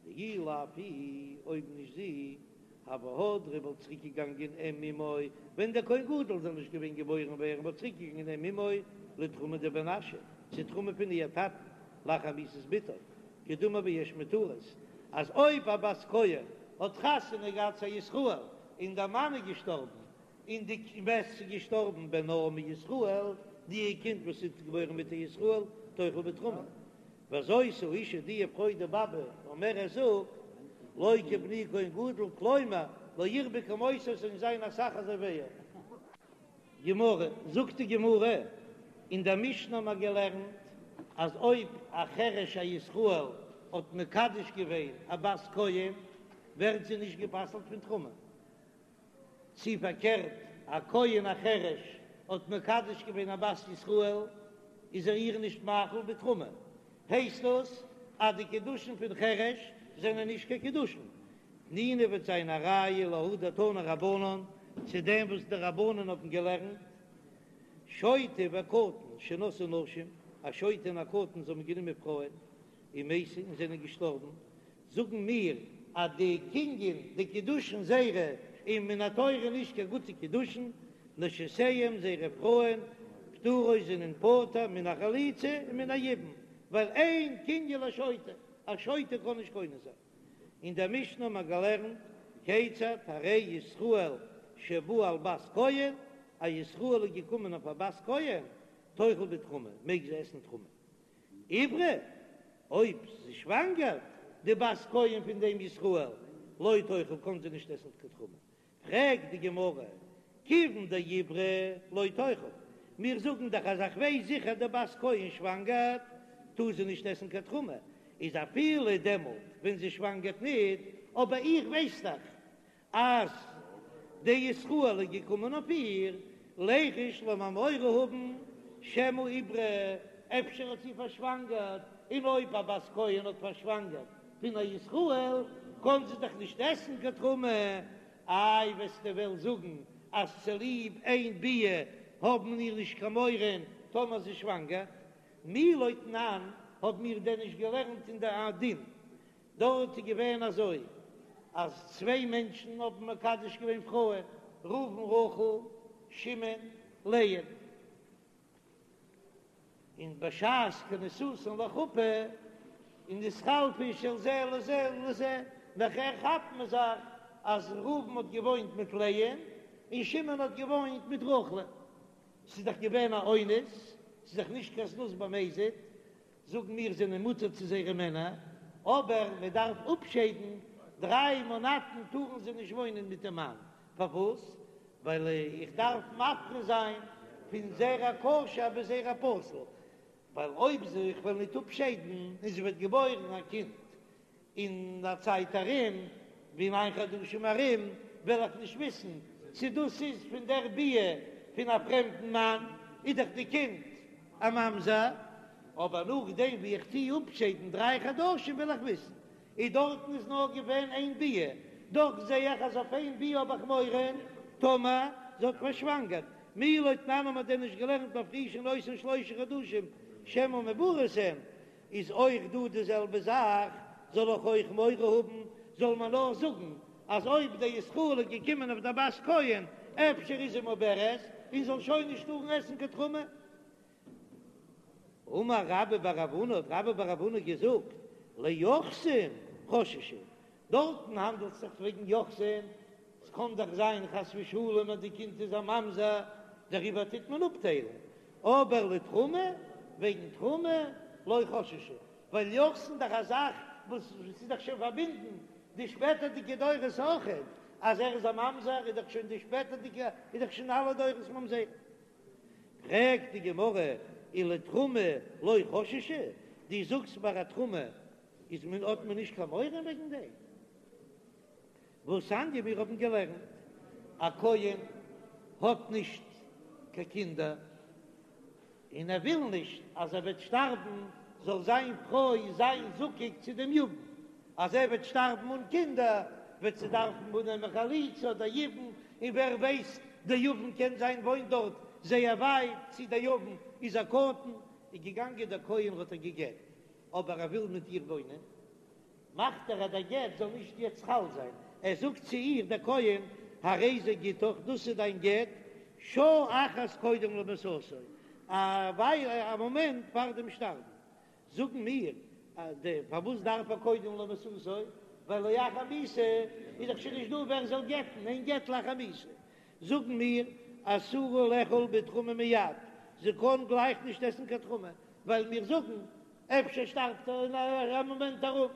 דאי לאו היא, אויב נישט זי, הוה הדרא וואלט צוריק געגאנגען אם אמו, ווען דער כהן גדול זאל נישט געווען געבוירן ווערן וואלט צוריק געגאנגען אם אמו לתרומה דבן אשי, צו תרומה פון איר טאטן, לאחר מיתת בתו, כדאמר ביש מותרות, אז אויב א בת כהן האט חתונה געהאט צו א ישראל און דער מאן איז געשטארבן און די ומת איז געשטארבן בנה מישראל, די קינד וואס איז געבוירן מיט א ישראל תאכל בתרומה. וזאת האשה די פרוי די באבע אומרת זאגט לא כבני כהן גדול כלומר לא ירבה כמותו עס זאלן זיין אסאך אזוי ווי ער. גמרא, זאגט די גמרא, אין דער משנה האבן מיר געלערנט אז אויב א חרש א ישראל האט מקדש געווען א בת כהן ווערט זי נישט גע'פסל'ט פון תרומה, צי פארקערט, א כהן א חרש האט מקדש געווען א בת ישראל, איז ער איר נישט מאכיל בתרומה, הייסט דאס אז די קידושין פון חרש זענען נישט קיין קידושין. תנינא וועט זיין א ראיה להא דתנו רבנן, צו דעם וואס די רבנן האבן געלערנט, שוטה וקטן שנשאו נשים, א שוטה און א קטן זיי האבן גענומען פרויען, ומתו און זענען געשטארבן, זאגן מיר אז די קנין, די קידושין זייערע איז מן התורה נישט קיין גוטע קידושין, נשותיהם זייערע פרויען פטורות זענען פטור מן החליצה און מן היבום, ווייל אין קנין לשוטה, א שוטה קען נישט קונה זיין. אין דער משנה האט מען געלערנט כיצד הרי ישראל שבא על בת כהן. א ישראל איז געקומען אויף א בת כהן, תאכל בתרומה, מעג זי עסן תרומה. עיברה, אויב זי שוואנגערט, די בת כהן פון דעם ישראל, לא תאכל, קען זי נישט עסן קיין תרומה. פרעגט די גמרא, כיוון דעיברה לא תאכל, מיר זאגן דאך אז איך ווייס זיכער די בת כהן שוואנגערט, טאר זי נישט עסן קיין תרומה, איז אפילו דעמאלט ווען זי שוואנגערט ניט, אבער איך ווייס דאך אז דער ישראל איז געקומען אויף איר, ליחוש לאמיר מורא האבן שמא עיברה, אפשר האט זי פארשוואנגערט, און אויב א בת כהן האט פארשוואנגערט פון א ישראל, קען זי דאך נישט עסן קיין תרומה, איי וועסטו וועלן זאגן אז צוליב איין ביאה האבן מיר נישט קיין מורא טאמער זי שוואנגערט? מי לא תנן, האבן מיר דען נישט געלערנט אין די דין דארט איז געווען אזוי אז צוויי מענטשן האבן מקדש געווען פרויען, ראובן רחל, שמעון לאה, און בשעת כניסתן לחופה און נתחלפה של זה לזה לזה, נאכער כאפט מען זיך אז ראובן האט געוואוינט מיט לאה און שמעון האט געוואוינט מיט רחל, ס'איז דאך געווען א אונס, ס'איז דאך נישט קיין זנות במזיד, זאגן מיר זענען מותר צו זייערע מענער, אבער מען דארף אפשיידן, דריי מאנאטן טארן זיי נישט וואוינען מיט דעם מאן, פארוואס? ווייל איך דארף מבחין זיין פון זרע כשר ביז זרע פסול, ווייל אויב זי איך וועל ניט אפשיידן און זי וועט געבוירן א קינד אין א צייט ארום, ווי ניין חדשים ארום, וועל איך נישט וויסן צו דאס איז פון דער ביאה פון א פרעמדן מאן, איז דאך די קינד א ממזר, אבער נאכדעם ווי איך טוה אפשיידן דריי חדשים וועל איך וויסן, און דארטן איז נאר געווען איין ביאה, דאך זע איך אז אויף איין ביאה האב איך מורא טאמער זי האט פארשוואנגערט, מי לא תנן האט מען דען נישט געלערנט מפרישין אותן שלושה חדשים שמא מעוברות הן, איז אויך דא די זעלבע זאך, זאל איך אויך מורא האבן, זאל מען נאר זאגן אז אויב דער ישראל איז געקומען אויף דער בת כהן אפשר איז זי מעוברת און זאל שוין נישט טארן עסן קיין תרומה. אמר רבה בר רב הונא, האט רבה בר רב הונא געזאגט, ליוחסין חששו, דארטן האנדלט זיך וועגן יוחסין, ס'קען דאך זיין חס ושלום אז די קינד איז א ממזר, דעריבער טוט מען אפטיילן, אבער לתרומה, וועגן תרומה, לא חששו, ווייל יוחסין דאך א זאך וואס ס'איז דאך שוין פארבינדן די שפעטערדיגע דורות אויכעט, אז ער איז א ממזר איז דאך שוין די שפעטערדיגע איז דאך שוין אלע דורות ממזרים. פרעגט די גמרא, ולתרומה לא חששו, דו זאגסט ביי א תרומה איז מען האט מען נישט קיין מורא וועגן דעם? והתניא מיר האבן געלערנט, א כהן האט נישט קיין קינדער, און ער וויל נישט אז ער וועט שטארבן זאל זיין פרוי זיין זקוק צו דעם יבם, אז ער וועט שטארבן אן קינדער וועט זי דארפן אננעמען חליצה אדער יבום, און ווער ווייסט דער יבם קען זיין וואוינט דארט זייער ווייט, צי דער יבם איז א קטן, איז געגאנגען דער כהן האט איר גע'גט, אבער ער וויל מיט איר וואוינען. מאכט ער אז דער גט זאל נישט יעצט חל זיין, ער זאגט צו איר דער כהן, הרי זה גיטך, דאס איז דיין גט, שעה אחת קודם למיתתו, א וויילע, א מאמענט פאר דעם שטארבן. זאגן מיר, פארוואס דארף ער קודם למיתתו, ווייל לאחר מיתה איז דאך שוין נישט דא ווער זאל גט'ן, אין גט לאחר מיתה. זאגן מיר, אסורה לאכול בתרומה מיד, זי קען גלייך נישט עסן קיין תרומה, ווייל מיר זאגן אפשר שטארבט ער אין א מאמענט ארום.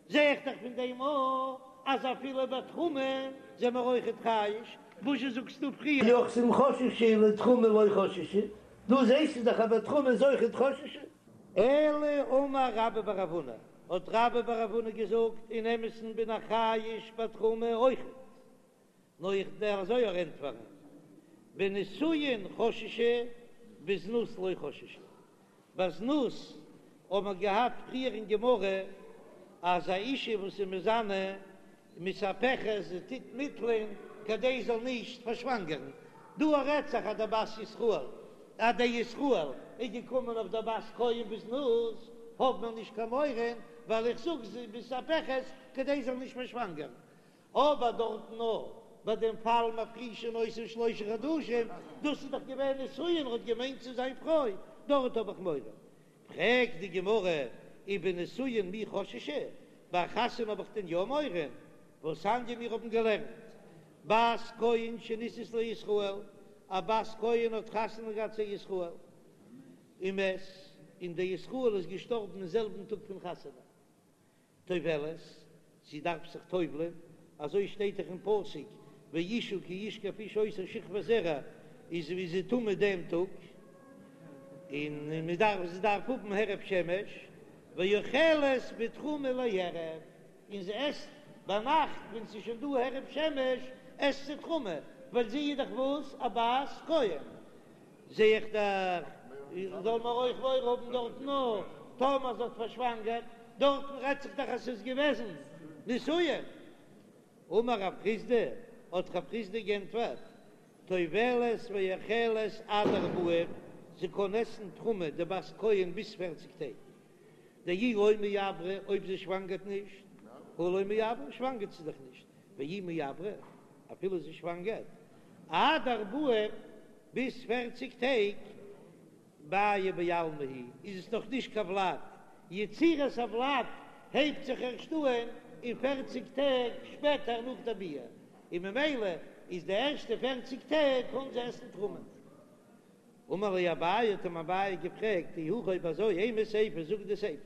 זע איך דאך פון דעם אויך אז אפילו ביי תרומה זעמער אויכעט חייש, וואזשע זאגסטו פריער? ליוחסין חששו לתרומה לא חששו, דא זעסטו דאך אז ביי תרומה איז אויכעט חששו. אלא אמר רבה בר רב הונא, האט רבה בר רב הונא געזאגט, אין אמת'ן בין איך חייש ביי תרומה אויכעט, נאר איך דער אזוי אויך ענטפערן, בנישואין חששו בזנות לא חששו, ביי זנות האט מען געהאט פריער אין גמרא אז א אישה וואס איז מזנה מתהפכת זי טוט מיטלען כדי זי זאל נישט פארשוואנגערן, דא רעדט זיך אז דער בת ישראל אז דער ישראל איז געקומען אויף דער בת כהן בזנות האט מען נישט קיין מורא ווייל איך זאג זי מתהפכת כדי זי זאל נישט פארשוואנגערן, אבער דארטן נאר ביי דעם פאל מפרישין אותן שלושה חדשים, דאס איז דאך געווען נישואין, ער האט געמיינט צו זיין פרוי, דארט האב איך מורא. פרעגט די גמרא, ובנישואין מי חששו, ביי חתונה האב איך דען יא מורא? והתניא מיר האבן געלערנט, בת כהן שנישאת לישראל, א. א בת כהן האט חתונה געהאט צו ישראל, ומת, און דער ישראל איז געשטארבן אין זעלבן טאג פון חתונה. טובלת, זי דארף זיך טובל'ען, אזוי שטייט דאך אין פסוק, ואשה כי ישכב איש אותה שכבת זרע, איז ווי זי טמא דעם טאג, און מען דארף, זי דארף האבן הערב שמש, ואוכלת בתרומה לערב, און זי עסט ביינאכט ווען ס'איז שוין דא הערב שמש, עסט זי תרומה, ווייל זי איז דאך וואס? א בת כהן. זע איך דאך, זאל מען אויך מורא האבן דארטן נאר טאמער זי האט פארשוואנגערט, דארטן רעדט זיך דאך אז ס'איז געוועזן נישואין. אמר רב חסדא, האט רב חסדא גענטפערט, טובלת ואוכלת עד ארבעים, זי קען עסן תרומה די בת כהן ביז פערציג טעג, דאי לא מעברא, אויב זי שוואנגערט נישט, הא לא מעברא, שוואנגערט זי דאך נישט, ואי מעברא, אפילו זי שוואנגערט, עד ארבעים, ביז פערציג טעג, מיא בעלמא היא, איז עס נאך נישט קיין ולד, יצירת הולד הייבט זיך ערשט אהן אין פערציג טעג שפעטער נאך די ביאה, און ממילא איז די ערשטע פערציג טעג קען זי עסן תרומה. אמר ליה אביי, האט אים אביי געפרעגט, אי הכי אויב אזוי, אימא סיפא, זאג די סיפא,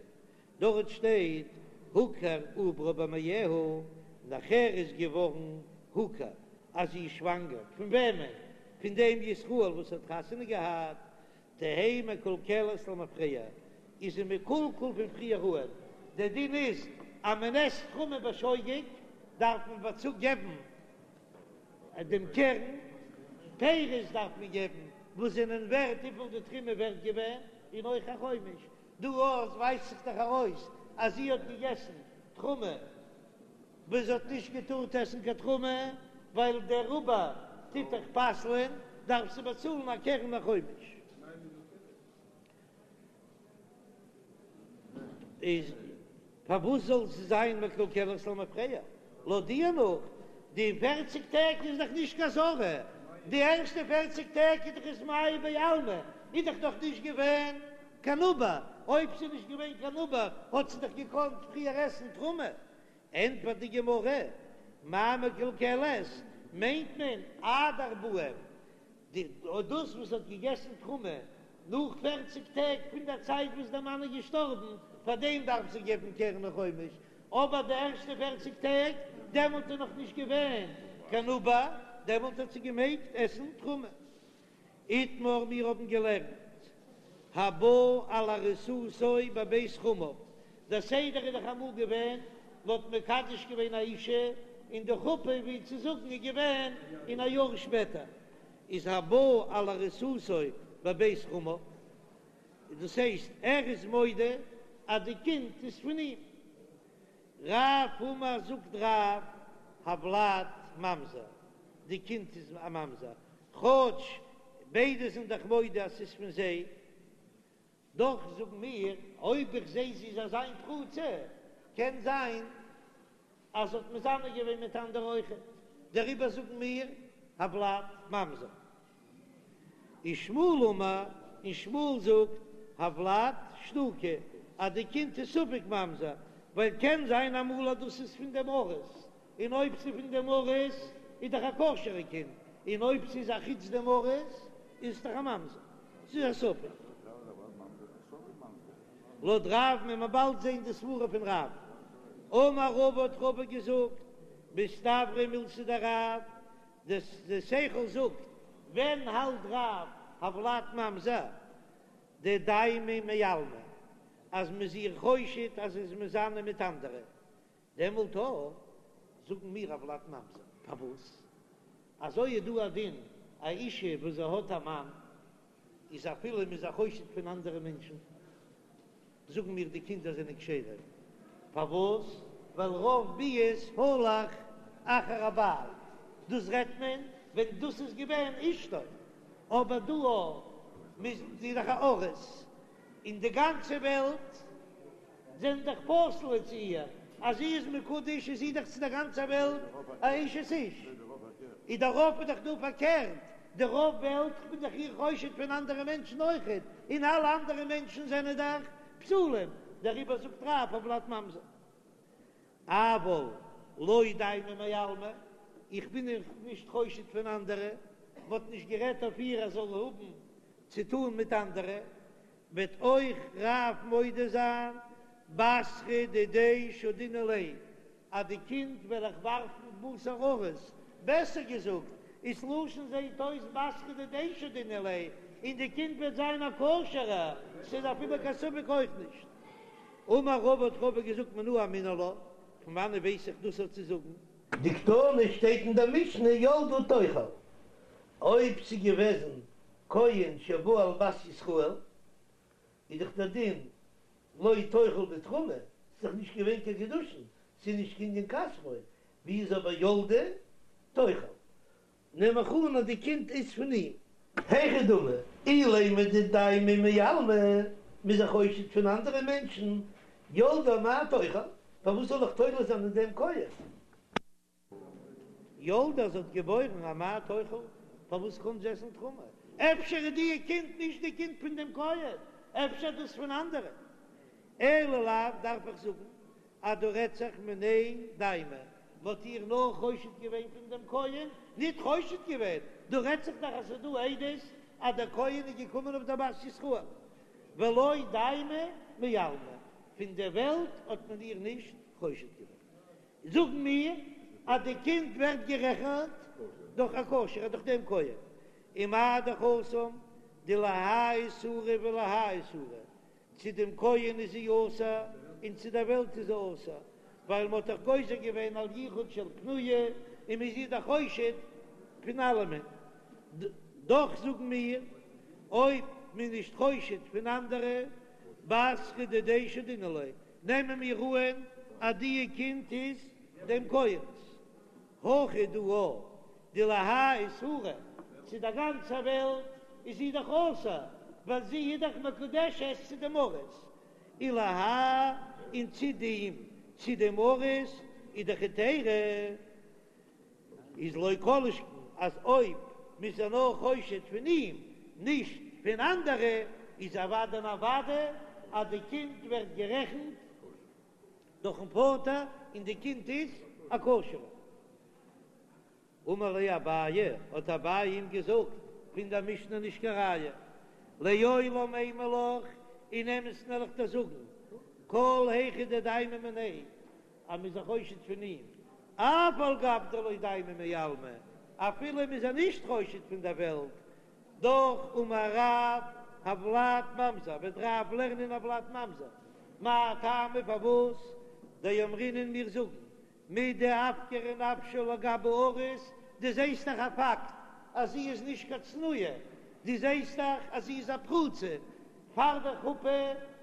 דארט שטייט הוכר עוברה במעיה, נאכער איז געווארן הוכר אז זי איז שוואנגער, פון וועמען? פון דעם ישראל וואס האט חתונה געהאט, תהא מקולקלת למפרע, איז זי מקולקל פון פריער אהן, דער דין איז אז מען עסט תרומה בשוגג דארף מען באצו געבן דעם קרן, פירות דארף מען געבן וואס זענען ווערט וויפיל די תרומה ווערט געווען, און אויך א חומש, דא אויך ווייזט זיך דאך ארויס אז זי האט געגעסן תרומה וואס זי האט נישט געטארט עסן קיין תרומה, ווייל דער עובר טוט דאך פסל'ען, דארף זי באצאלן א קרן א חומש. איז פארוואס זאל זי זיין מקולקלת למפרע? לויט דיר נאך די פערציג טעג איז דאך נישט קיין אזהרה, די ערשטע פערציג טעג איז דאך עס מיא בעלמא, איז דאך נאך נישט געווען קיין עובר, אויב ס'איז נישט געווען קיין עובר האט זי דאך געקאנט פריער עסן תרומה. ענטפערט די גמרא, מאי מקולקלת מיינט מען עד ארבעים, די דאס וואס האט געגעסן תרומה נאך פערציג טעג פון דער צייט וואס דער מאן איז געשטארבן, פאר דעם דארף זי געבן קרן וחומש, אבער די ערשטע פערציג טעג, דעמאלט איז נאך נישט געווען קיין עובר, דעמאלט האט זי געמעגט עסן תרומה. איתמר, מיר האבן געלערנט, הבא על ארוסתו בבית חמיו, דער סדר איז דאך אמאל געווען, מען האט מקדש געווען א אישה, און די חופה ווי צו זאגן איז געווען אין א יאר שפעטער, איז הבא על ארוסתו בבית חמיו, דאס הייסט ער איז מודה אז די קינד איז פון אים. רב אמר זאגט רב, הולד ממזר, די קינד איז א ממזר, כאטש ביידע זענען דאך מודה אז ס'איז פון זיי, דאך זאגן מיר, אויב איך זע זי איז אזא מין פרוצה, קען זיין אז זי האט מזנה געווען מיט אנדערע אויכעט, דעריבער זאגן מיר הולד ממזר. ושמואל אמר, און שמואל זאגט, הולד שתוקי, אז די קינד איז ספק ממזר, ווייל קען זיין אמאל אז דאס איז פון דעם ארוס, און אויב ס'איז פון דעם ארוס איז דאך א כשר'ע קינד, און אויב ס'איז א חוץ דעם ארוס איז עס דאך א ממזר. ס'איז א ספק. לויט רב וועט מען באלד זען די סברה פון רב. אמר רבא האט רבא געזאגט, מסתברא מילתא דרב, די שכל זאגט, ווען האלט רב הולד ממזר דדיימא מעלמא אז מ'איז איר חושד אז זי איז מזנה מיט אנדערע, דעמאלט אויך זאגן מיר הולד ממזר. פארוואס? אזוי איז דא א דין, א אישה וואס זי האט א מאן, איז אפילו מ'איז איר חושד פון אנדערע מענטשן, זאגן מיר די קינדער זענען כשרים. פארוואס? ווייל רוב ביאות הלך אחר הבעל, דאס רעדט מען ווען דאס איז געווען אשתו, אבער דא אויך מ'איז דאך א ארוס, און די גאנצע וועלט זענען דאך פסול צו איר, אז זי איז מקודש איז זי דאך צו דער גאנצער וועלט א אשת איש, איז דער רוב איז דאך דא פארקערט, די רוב וועלט כ'בין דאך איר חושד פון אנדערע מענטשן אויכעט, און אלע אנדערע מענטשן זענען דאך פסולים, דעריבער זאגט רב הולד ממזר. אבל לא דיימא מעלמא, איך בין איר נישט חושד פון אנדערע. מ'האט נישט גערעדט אויף איר אז זאל האבן צו טאן מיט אנדערע, וועט אויך רב מודה זיין בתרא דידיה שדינן ליה אז די קינד וועל איך ווארפן בתר ארוס, בעסער געזאגט, איז לשון זעהט אויס בתרא דידיה שדינן ליה, און די קינד וועט זיין א כשר'ע, ס'איז אפילו קיין ספק אויך נישט. אמר רבא האט רבא געזאגט מנא אמינא לה, פון וואנעט ווייס איך דאס אויף צו זאגן? דקתני שטייט אין דער משנה ילדה תאכל, אויב ס'איז געוועזן כהן שבא על בת ישראל, איז דאך דער דין לא תאכל בתרומה, ס'איז דאך נישט געווען קיין קידושין, ס'איז נישט קנין כספו, ווי איז אבער ילדה תאכל? נעם איך אן אז די קינד איז פון אים. היכי דמי, אילימא דדיימא מעלמא, מ'איז איר חושד פון אנדערע מענטשן, ילדה אמאי תאכל, פארוואס זאל איך תולה זיין אין דעם כהן? ילדה זי האט געבוירן אמאי תאכל, פארוואס קען זי עסן תרומה? אפשר איז די קינד נישט די קינד פון דעם כהן, אפשר דאס פון אנדערע. אלא לאו דארף איך זאגן אז דא רעדט זיך מיניה דיימא, מ'האט איר נאר חושד געווען פון דעם כהן, ניט חושד געווען, דא רעדט זיך דאך אז ס'איז דא עדות אז דער כהן איז געקומען אויף דער בת ישראל, ולא דיימא מעלמא, פון דער וועלט האט מען איר נישט חושד געווען. זאגן מיר אז די קינד ווערט גערעכנט דורך א כשר'ע דורך דעם כהן, ומה דאך התם דלהאי איסורא ולהאי איסורא, צו דעם כהן איז זי אסור און צו דער וועלט איז זי אסור, ווייל מ'האט דאך גוזר געווען על יחוד של פנויה און מ'איז איר דאך חושד פון אלעמען, דאך זאגן מיר אויב מ'איז נישט חושד פון אנדערע, בתרא דידיה שדינן ליה, נעמען מיר אהן אז די קינד איז דעם כהן'ס. הכא דא דלהאי איסורא, צו דער גאנצער וועלט איז זי דאך אסור, ווייל זי איז דאך מקודשת צו דעם ארוס, ולהאי און צו דעם צו דעם ארוס איז דאך היתירא. איז לא כל שכן אז אויב מ'איז איר נאר חושד פון אים, נישט פון אנדערע, איז אוודאי און אוודאי אז די קינד ווערט גערעכנט דורכן פאטער און די קינד איז א כשר'ע. אמר ליה אביי, האט אביי אים געזאגט, פון דער משנה נישט קיין ראיה, לעולם אימא לך, אין אמת'ן וועל איך דיר זאגן, כל היכא דדיימא מיניה, אז מ'איז איר חושד פון אים, אף על גב דלא דיימא מעלמא, אפילו מ'איז איר נישט חושד פון דער וועלט, דאך אמר רב, הולד ממזר, וועט רב לערנען הולד ממזר, מאי טעמא פארוואס דאמרינן מיר זאגן מדאפקרא נפשה לגבי ארוס, דו זעסט דאך א פאקט אז זי איז נישט קיין צנועה, דו זעסט דאך אז זי איז א פרוצה, פאר דער חופה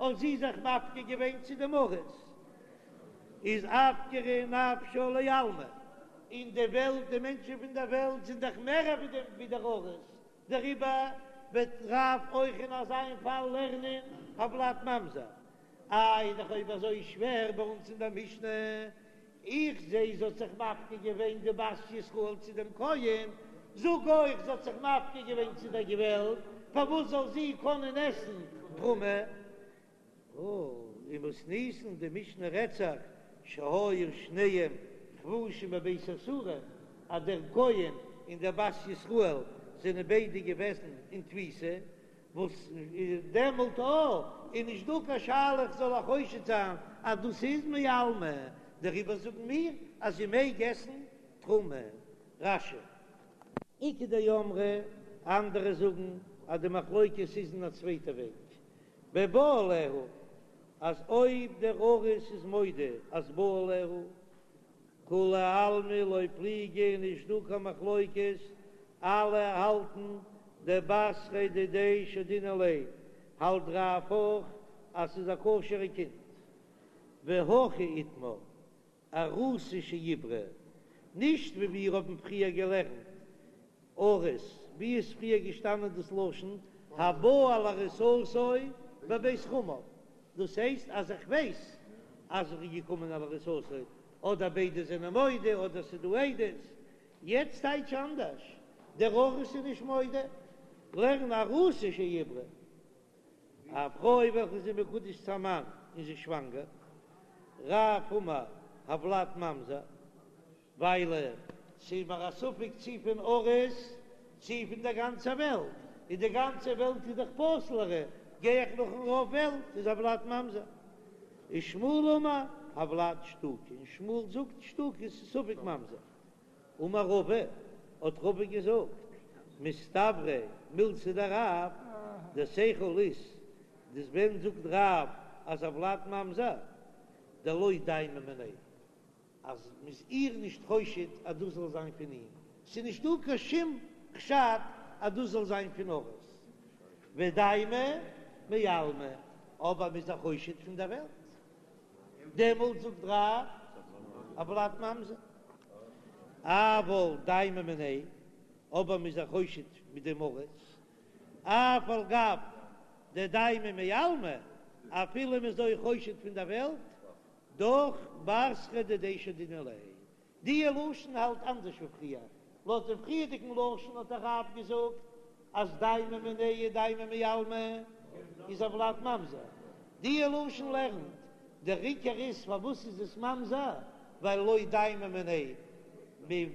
האט זי זיך מפקיר געווען צו דעם ארוס. איז אפקרא נפשה לעלמא, אין די וועלט, די מענטשן פון דער וועלט זענען דאך מער ווי דער ארוס, דעריבער וועט רב אויך אין אזא פאל לערנען הולד ממזר. איי איז דאך אויב אזוי שווער ביי אונז אין דער משנה, איך זע זי האט זיך מפקיר געווען די בת ישראל צו דעם כהן, זאג אויך זי האט זיך מפקיר געווען צו דער וועלט, פארוואס זאל זי קענען עסן תרומה? ומתניתין די משנה רעדט זיך שהיו שניהם חבושים בבית האסורין אז דער כהן און דער בת ישראל זענען ביידע געוועזן אין תפיסה, וואס דעמאלט איז נישט דא קיין שאלה איך זאל איר חושד זיין אז דאס איז מעלמא, דעריבער זאגן מיר אז זי מעג עסן תרומה. רש"י. איכא דאמרי, אנדערע זאגן אז די מחלוקת איז אין א צווייטע וועג, בבא עליה, אז אויב דער ארוס איז מודה אז בא עליה, כולי עלמא לא פליגי נישט דא קיין מחלוקת, אלע האלטן דבתריה דידיה שדינן ליה, האלט רב אויך אז ס'איז א כשר'ע קינד. והכי איתמר, ארוסה שעיברה, נישט ווי מיר האבן פריער געלערנט ארוס, ווי איז פריער געשטאנען דאס לשון הבא על ארוסתו בבית חמיו, דאס הייסט אז איך ווייס אז ער איז געקומען על ארוסתו, אדער ביידע זענען מודה אדער ס'איז דא עדות, יעצט טייטש אנדערש, דער ארוס איז נישט מודה, לערן ארוסה שעיברה. א פרוי וועלכע איז מקודש צו א מאן און זי איז שוואנגער, רב אמר הולד ממזר, ווייל ס'איז מיר א ספק צי פון ארוס. צי פון דער גאנצער וועלט, און די גאנצע וועלט איז דאך פסול'ערע, גיי איך נאכן רוב וועלט איז הולד ממזר. ושמואל אמר הולד שתוקי, און שמואל זאגט שתוקי איז ספק ממזר. אמר רבא, האט רבא געזאגט, מסתברא מילתא דרב, דער שכל איז, דאס ווען זאגט רב אז הולד ממזר, דלא דיימא מיניה, אז מ'איז איר נישט חושד אז דאס זאל זיין פון אים, ס'איז נישט דא קיין שום חשד אז דאס זאל זיין פון ארוס, ודיימא מעלמא, אבער מ'איז איר חושד פון דער וועלט, דעמאלט זאגט רב הולד ממזר, אבל דיימא מיניה, אבער מ'איז איר חושד מיט דעם ארוס, אף על גב דדיימא מעלמא, אפילו מ'איז אויך חושד פון דער וועלט, דאך בתרא דידיה שדינן ליה. די לשון האלט אנדערש ווי פריער. לויט דעם פריערדיגן לשון האט דער רב געזאגט אז דיימא מיניה דיימא מעלמא איז הולד ממזר. די לשון לערנט דער עיקר איז פארוואס איז עס ממזר ווייל לא דיימא מיניה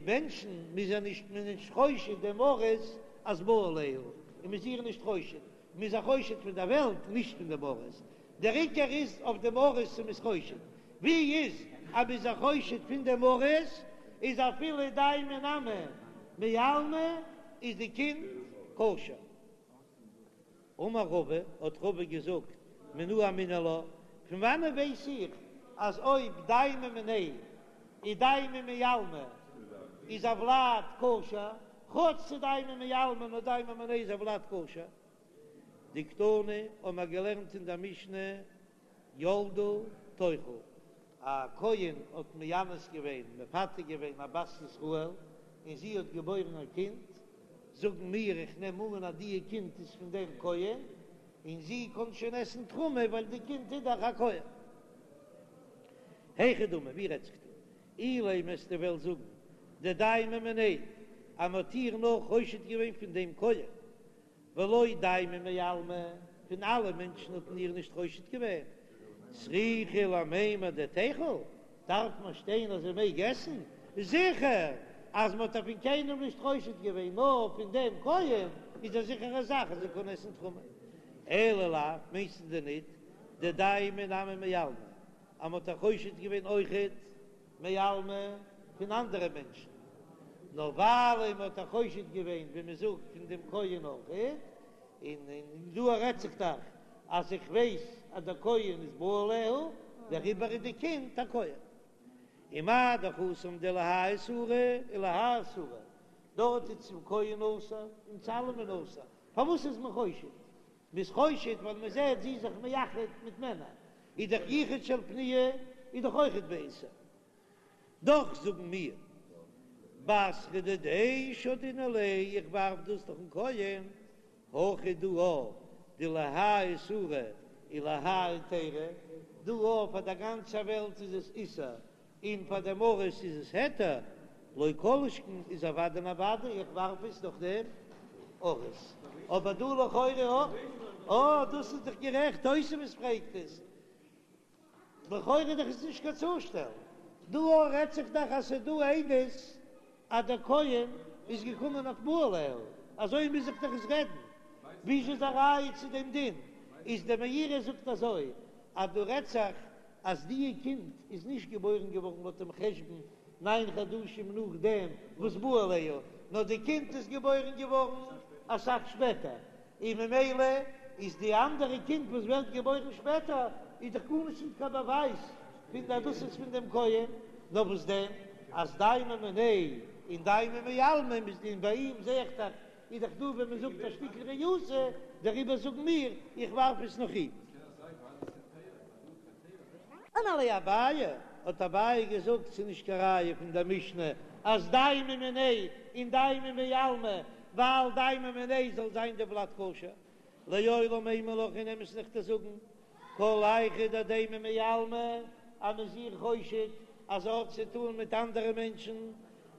מענטשן מ'איז איר נישט מען איז נישט חושד דעם ארוס אז בא עליה און מ'איז איר נישט חושד מ'איז איר חושד פון דער וועלט נישט פון דעם ארוס. דער עיקר איז אויף דעם ארוס צו מ'איז חושד. ווי איז אז מ'איז איר חושד פון דעם ארוס איז אפילו דיימא נמי מעלמא איז די קינד כשר. אמר רבא, האט רבא געזאגט, מנא אמינא לה, פון וואנען ווייס איך אז אויב דיימא מיניה און דיימא מעלמא איז הולד כשר, כאטש ס'דיימא מעלמא נאר דיימא מיניה איז הולד כשר? דקתני האבן מיר געלערנט אין דער משנה ילדה תאכל, א כהן האט מאנס געווען, מפתה געווען א בת ישראל, און זי האט געבוירן א קינד, זאגן מיר, איך נעם אן אז די קינד איז פון דעם כהן, און זי קען שוין עסן תרומה ווייל די קינד איז דאך א כהן. היכי דמי, ווי רעדט זיך דא? אילימא וועסטו וועלן זאגן דדיימא מיניה, אז מען האט איר נאר חושד געווען פון דעם כהן, ולא דיימא מעלמא, פון אלע מענטשן האט מען איר נישט חושד געווען, צריכא למימר דתיכול, דארף מען שטיין אז זי מעג עסן? זיכער אז מען האט איר פון קיינעם נישט חושד געווען נאר פון דעם כהן, איז א זיכערע זאך אז זי קען עסן תרומה. אלא לאו, מיינסטו דען ניט דדיימא נמי מעלמא, אז מען האט איר חושד געווען אויכעט מעלמא פון אנדערע מענטשן, נאר ווייל מען האט איר חושד געווען ווי מען זאגט פון דעם כהן אויכעט, און דא רעדט זיך דאך אז איך ווייס אז דער כהן איז בא עליה, דעריבער איז די קינד א כהן. ומה דאך התם דלהאי איסורא ולהאי איסורא, דארט איז צום כהן אסור און צו אלעמען אסור, פארוואס איז מען חושד? מען איז חושד ווייל מען זעט זי איז זיך מייחד מיט מענער, איז דאך יחוד של פנויה איז דאך אויכעט באיסור. דאך זאגן מיר בתרא דידיה שדינן ליה, איך ווארף דאס נאכן כהן, הכא דא דלהאי איסורא ולהאי היתירא, דא פאר דער גאנצער וועלט איז עס איסור און פאר דעם ארוס איז עס היתר, לא כל שכן איז אוודאי און אוודאי איך ווארף עס נאך דעם ארוס, אבער דא לכאורה אה דאס איז דאך גערעכט תוספות פרעגט עס, לכאורה דאך איז נישט קיין צושטעל, דא רעדט זיך דאך אז ס'איז דא עדות אז דער כהן איז געקומען אויף בא עליה, אזוי מוז זיך דאך עס רעדן, ווי איז א ראיה צו דעם דין? איז דער מאירי זאגט אזוי אז דא רעדט זיך אז די קינד איז נישט געבוירן געווארן לויט דעם חשבון ניין חדשים נאכדעם וואס בא עליה, נאר די קינד איז געבוירן געווארן אסאך שפעטער, און ממילא איז די אנדערע קינד וואס ווערט געבוירן שפעטער איז דאך גארנישט נישט קיין באווייז פון אז דאס איז פון דעם כהן, נאר וואס דען אז דיימא מיניה און דיימא מעלמא און ביי אים זעה איך דאך איז דאך דא ווען מען זאגט א שטיקל ריעותא, דעריבער זאגן מיר איך ווארף עס נאך אים. אמר ליה אביי, האט אביי געזאגט, ס'איז נישט קיין ראיה פון דער משנה אז דיימא מיניה און דיימא מעלמא, ווייל דיימא מיניה זאל זיין די ולד כשר, לעולם אימא לך אין אמת'ן וועל איך דיר זאגן, כל היכא דדיימא מעלמא, אז מ'איז איר חושד אז ער האט צו טאן מיט אנדערע מענטשן,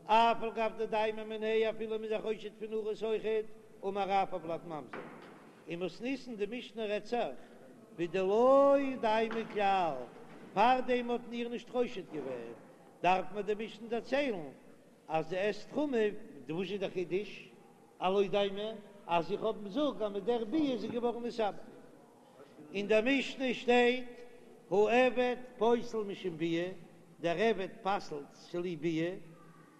אף על גב דדיימא מיניה אפילו מ'איז איר חושד פון ארוס אויכעט, אמר רב הולד ממזר. ומתניתין די משנה רעדט זיך בדלא דיימא כלל, פארדעם האט מען איר נישט חושד געווען, דארף מען די משנה דערציילן אז זי עסט תרומה, וואס איז די חידוש? הלא דמי אז איך האב זאג אז מיט דער ביאה איז זי געווארן מתעבר. אין דער משנה שטייט העבד פוסל משום ביאה, דער עבד פסל'ט צוליב ביאה,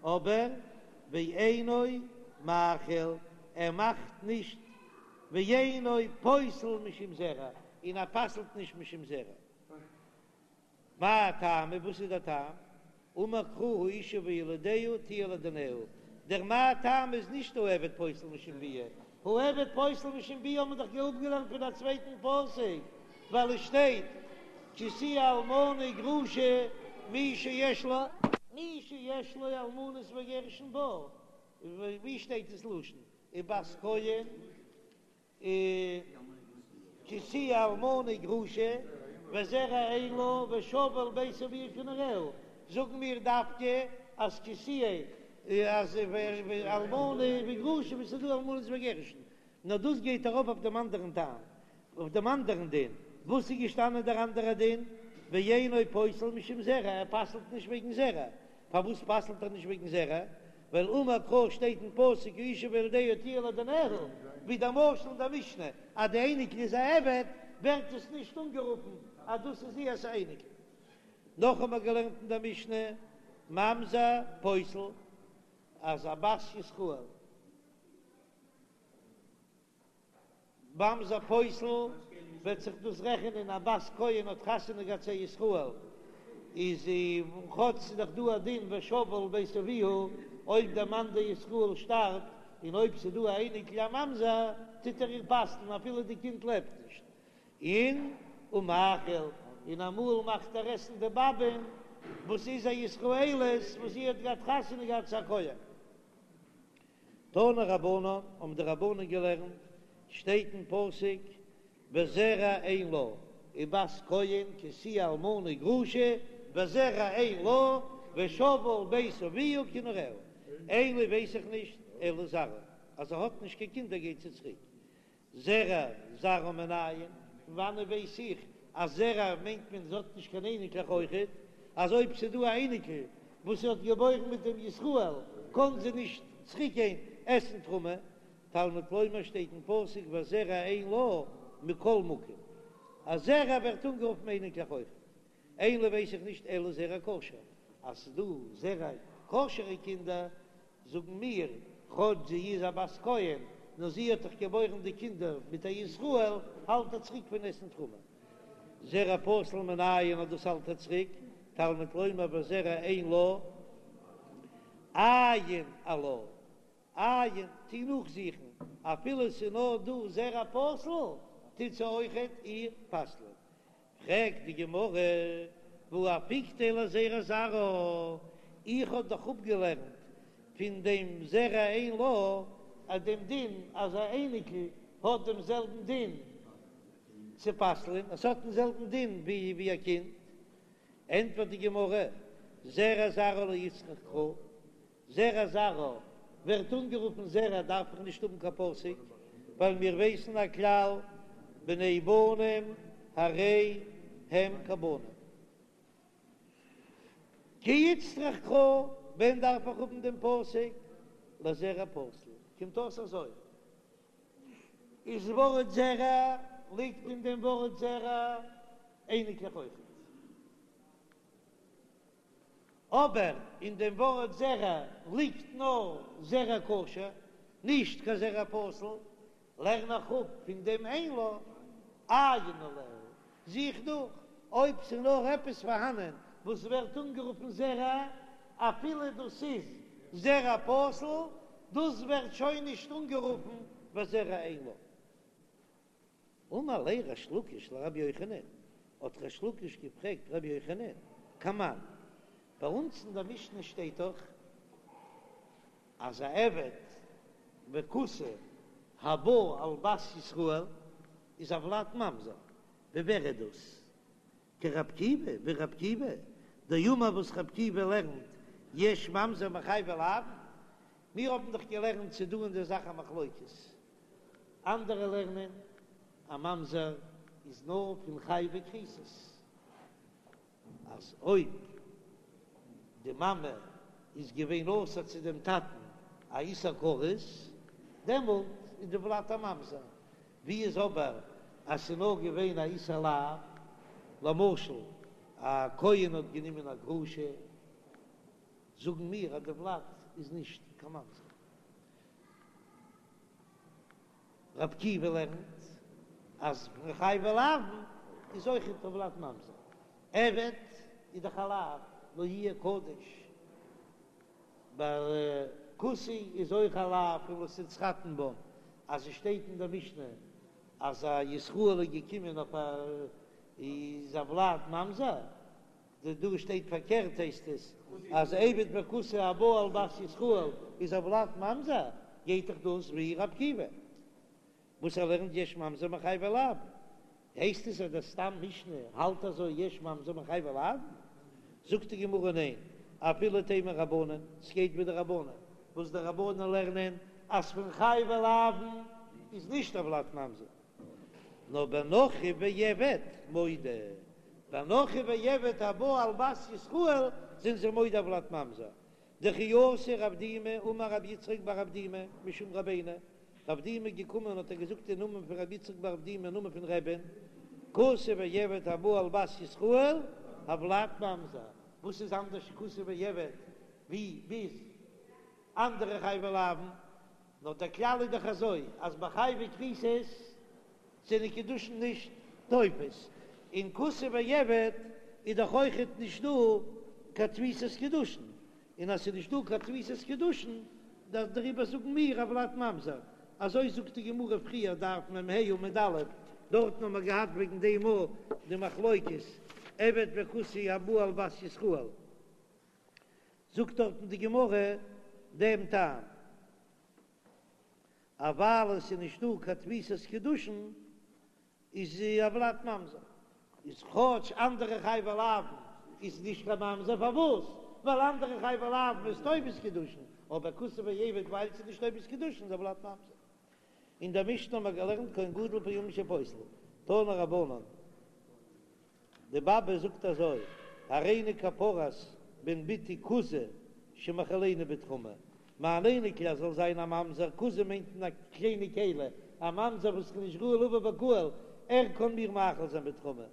אבער ואינו מאכיל, ער מאכט נישט, ואינו פוסל משום זרע, און ער פסל'ט נישט משום זרע. מאי טעמא, וואס איז דער טעם? אמר קרא האשה וילדיה תהיה לאדוניה, דער מאי טעמא איז נישט העבד פוסל משום ביאה, העבד פוסל משום ביאה האט מען דאך אפגעלערנט פון א צווייטן פסוק, ווייל עס שטייט כי תהיה אלמנה וגרושה מי שיש לו מי שיש לו אלמנות וגירושין בה, ווי שטייט דאס לשון ובת כהן? כי תהיה אלמנה וגרושה וזרע אין לה ושבה אל בית אביה כנעוריה, זאגן מיר דווקא אז כי תהיה אז אלמנה וגרושה וואו ס'איז דא אלמנות וגירושין, נאר דאס גייט ארויף אויף דעם אנדערן טעם, אויף דעם אנדערן דין, וואס איז געשטאנען דער אנדערער דין, ואינו פוסל משום זרע, ער פסל'ט נישט וועגן זרע, פארוואס פסל'ט ער נישט וועגן זרע? ווייל אמר קרא שטייט אין פסוק האשה וילדיה תהיה לאדוניה, ווי דער משל אין דער משנה אז די אייניקל איז א עבד, ווערט עס נישט אנגערופן אז דאס איז איהר'ס א אייניקל. נאך האבן מיר געלערנט אין דער משנה ממזר פוסל אז א בת ישראל. ממזר פוסל וועט זיך דאס רעכענען א בת כהן האט חתונה געהאט צו א ישראל איז זי כאטש ס'איז דאך דא א דין ושבה אל בית אביה אויב דער מאן דער ישראל שטארבט און אויב ס'איז דא א אייניקל א ממזר טוט ער איר פסל'ן אפילו די קינד לעבט נישט און ומאכיל און אמאל מאכט ער עסן די באבען וואס איז א ישראלית וואס זי האט געהאט חתונה געהאט צו א כהן. תנו רבנן, האבן די רבנן געלערנט, שטייט אין פסוק, וזרע אין לה, ובת כהן כי תהיה אלמנה וגרושה, וזרע אין לה, ושבה אל בית אביה כנעוריה, אין לי ווייס איך נישט, אלא זרעה, אז זי האט נישט קיין קינדער גייט זי צוריק, זרע זרעה מנין, פון וואנען ווייס איך אז זרע מיינט מען זי האט נישט קיין אייניקלעך אויכעט, אז אויב ס'איז דא א אייניקל וואס זי האט געבוירן מיט דעם ישראל קען זי נישט צוריק גיין עסן תרומה, תלמוד לומר שטייט אין פסוק וזרע אין לה מכל מקום, אז זרע ווערט אנגערופן אייניקלעך אויכעט, אין לי ווייס איך נישט אלא זרע כשר, אז ס'איז דא זרע כשר'ע קינדער זאגן מיר, כאטש זי איז א בת כהן, נאר זי האט דאך געבוירן די קינדער מיט א ישראל, האלט ער צוריק פון עסן תרומה. זרע פסול מנין אז דאס האלט ער צוריק, תלמוד לומר וזרע אין לה, עיין עלה, עיין, טו נאכזוכן, אפילו ס'איז נאר דא זרע פסול, טוט זי אויכעט איר פסל'ען. פרעגט די גמרא, והא אפיקתיה לזרע זרעה, איך האב דאך אפגעלערנט פון דעם זרע אין לה אז דעם דין אז א אייניקל האט דעם זעלבן דין צו פסל'ען, עס האט דעם זעלבן דין ווי א קינד, ענטפערט די גמרא, זרע זרעה לא איצטריך קרא, זרע זרעה ווערט אנגערופן זרע דארף איך נישט האבן קיין פסוק, ווייל מיר ווייסן א כלל בני בנים הרי הם כבנים. כי איצטריך קרא, ווען דארף איך האבן דעם פסוק? לזרע פסול, קומט אויס אזוי, איז ווארט זרע ליגט אין דעם ווארט זרע אייניקלעך אויכעט. אבער אין דעם ווארט זרע ליגט נאר זרע כשר, נישט קיין זרע פסול, לערן איך אפ פון דעם אין לה, עיין עליה, זוך נאך אויב ס'איז נאר עפעס פארהאנען וואס ווערט אנגערופן זרע, אפילו דאס איז זרע פסול, דאס ווערט שוין נישט אנגערופן וזרע אין לה. אמר ליה ריש לקיש לרבי יוחנן, האט ריש לקיש געפרעגט רבי יוחנן, כמאן, ביי אונז אין דער משנה שטייט דאך אז א עבד וכותי הבא על בת ישראל איז הולד ממזר, ווי ווער איז דאס? כרבי עקיבא, ווי רבי עקיבא, דאמר וואס רבי עקיבא לערנט יש ממזר מחייבי לאוין, מיר האבן דאך געלערנט ס'איז דא אין דער זאך א מחלוקת, אנדערע לערנען א ממזר איז נאר פון חייבי כריתות, אז אויב די מאמע איז געווען אסור צו דעם טאטן א איסור כרת. דעמאלט איז די ולד א ממזר. ווי איז אבער אז ס'איז נאר געווען א איסור לאו, למשל א כהן האט גענומען א גרושה, זאגן מיר אז די ולד איז נישט קיין ממזר. רבי עקיבא לערנט אז פון חייבי לאוין איז אויכעט הולד ממזר, עבד איז דאך א לאו לא יהיה קדש, ביי כותי איז אויך א לאו פון לא תתחתן בם, אז עס שטייט אין דער משנה אז א ישראל איז געקומען אויף א איז הולד ממזר, די דא שטייט פארקערט הייסט עס אז עבד וכותי הבא על בת ישראל איז הולד ממזר, גייט דאך דאס ווי רבי עקיבא וואס ער לערנט יש ממזר מחייבי לאוין, הייסט עס אז דער סתם משנה האלט אזוי יש ממזר מחייבי לאוין? זאגט די גמרא ניין, אפילו תימא רבנן, ס'גייט ווי די רבנן, וואס די רבנן לערנען אז פון חייבי לאוין איז נישט הולד ממזר. נאר בנכרי ועבד מודה, בנכרי ועבד הבא על בת ישראל זענען זיי מודה הולד ממזר, דכי אתא רב דימי אמר רבי יצחק בר אבדימי משום רבינו, רב דימי איז געקומען האט ער געזאגט אין נאמען פון רבי יצחק בר אבדימי אין נאמען פון רבי'ן, כותי ועבד הבא על בת ישראל הולד ממזר, וואס איז אנדערש כותי ועבד ווי ביז אנדערע חייבי לאוין? נאר דער כלל איז דאך אזוי אז ביי חייבי כריתות זענען קידושין נישט תופס, און כותי ועבד איז דאך אויכעט נישט דא קיין תפיסת קידושין, און אז ס'איז נישט דא קיין תפיסת קידושין דעריבער זאגן מיר הולד ממזר, אזוי זאגט די גמרא פריער דף מ"ה עמוד א', דארטן האבן מיר געהאט וועגן דעם אויך די מחלוקת עבד וכותי הבא על בת ישראל. זאגט דארטן די גמרא דעם טעם, אז ווייל עס איז נישט דא קיין תפיסת קידושין איז הולד ממזר, איז כאטש אנדערע חייבי לאוין איז נישט קיין ממזר, פארוואס? ווייל אנדערע חייבי לאוין איז תופס קידושין, אבער כותי ועבד ווייל עס איז נישט תופס קידושין איז הולד ממזר. אין דער משנה האבן מיר געלערנט כהן גדול פעמים שפוסל, תנו רבנן. די באבע זאגט אזוי, הריני כפרת בן בתי כוזא שמאכילני בתרומה, מיין אייניקל ער זאל זיין א ממזר, כוזא מיינט אין א קליינע כלי, א ממזר וואס איז נישט ראוי לבוא בקהל, ער קען מיר מאכיל זיין בתרומה.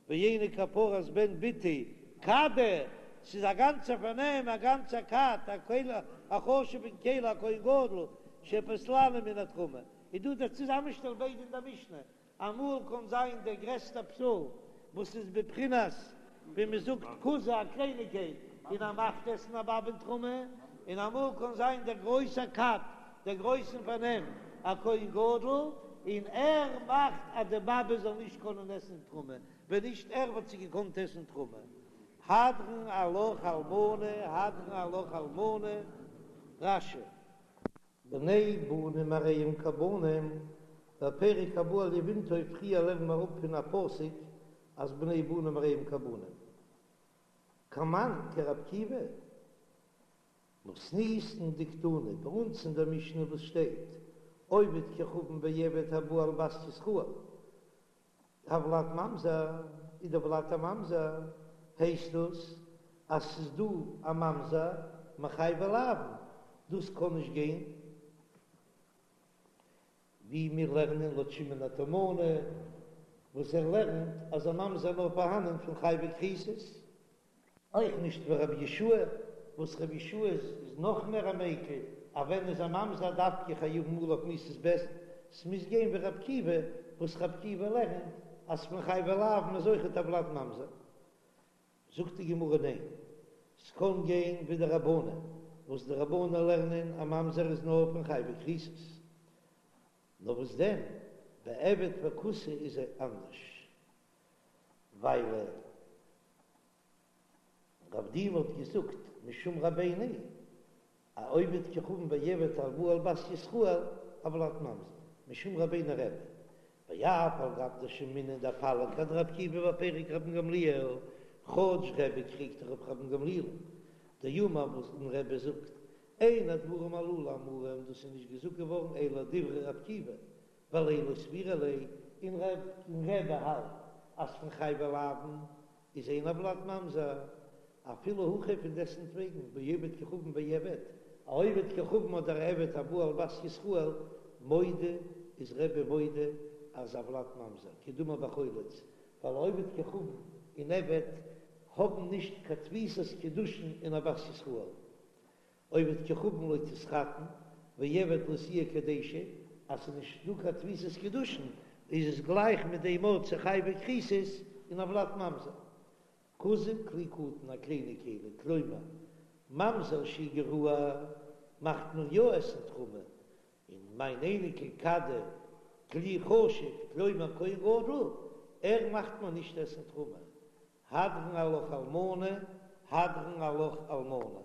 ואיני כפרת בן בתי כדא, ס'איז א גאנצע פארנעם, א גאנצע כד, א כלי, א חשוב'ן כלי, א כהן גדול, שפוסלני מן התרומה. איז דא דער צוזאמשטעל ביידע אין דער משנה, אמאל קען זיין דער גרעסטער פסול וואס איז בבחינת ווי מען זאגט כוזא א קלייניגקייט און ער מאכט עסן א באבען תרומה, און אמאל קען זיין דער גרויסער כד דער גרויסן פארנעם א כהן גדול און ער מאכט אז די באבע זאל נישט קענען עסן תרומה, ווען נישט ער וואלט זי געקאנט עסן תרומה. הדרן עלך אלמנה הדרן עלך אלמנה, רש"י. בני בנים הרי הם כבנים, בפרק הבא על יבמתו פריער לערנען מיר אפ פון א פסוק אז בני בנים הרי הם כבנים. כמאן כרבי עקיבא, מתניתין דקתני, ביי אונז אין דער משנה וואס שטייט עובד כוכבים ועבד הבא על בת ישראל, הולד ממזר איז דער ולד א ממזר, הייסט דאס אז ס'איז דא א ממזר מחייבי לאוין, דאס קען נישט גיין ווי מיר לערנען לויט שמעון התימני וואס ער לערנט אז א ממזר נאר פארהאנען פון חייבי כריתות. אויך נישט ווי רבי יהושע וואס רבי יהושע איז נאך מער א מיקל, אז ווען איז א ממזר דווקא חייבין עליו מיתת בית דין, ס'מוז גיין ווי רבי עקיבא, וואס רבי עקיבא לערנט אז פון חייבי לאוין איז אויכעט הולד ממזר. זאגט די גמרא ניין, ס'קען גיין ווי די רבנן, וואס די רבנן לערנען א ממזר איז נאר פון חייבי כריתות, נאר וואס דען בעבד וכותי איז אנדערש, ווייל רב דימי האט געזאגט משום רבינו א עובד כוכבים ועבד הבא על בת ישראל הולד ממזר משום רבינו רבי ואף על גב דשמעינן דפליג אדרבי עקיבא בפרק רבן גמליאל כאטש רבי קריגט אויף רבן גמליאל דאמר וואס רבי זאגט אין הדברים הללו אמורים דאס איז נישט געזאגט געווארן אלא דברי רבי עקיבא ווייל לא סבירא ליה און רבי האלט אז פון חייבי לאוין איז אין הולד ממזר, אפילו הכי פון דעסטוועגן בעובד כוכבים ועבד. א עובד כוכבים אדער א עבד הבא על בת ישראל, מודה איז רבי מודה אז הולד ממזר, כדאמר בחולץ, ווייל עובד כוכבים און עבד האבן נישט קיין תפיסת קידושין אין א בת ישראל. עובד כוכבים לא תתחתן, ועבד לא תהיה קדשה, אז ס'איז נישט דא קיין תפיסת קידושין איז עס גלייך מיט דעם ארט צו חייבי כריתות און הולד ממזר. כוזא כלי קטן א קליינע כלי, כלומר, ממזר שהוא גרוע מאכט מען יא עסן תרומה, און מיין אייניקל כדא כלי חשוב כלומר כהן גדול, ער מאכט מען נישט עסן תרומה. הדרן עלך אלמנה, הדרן עלך אלמנה.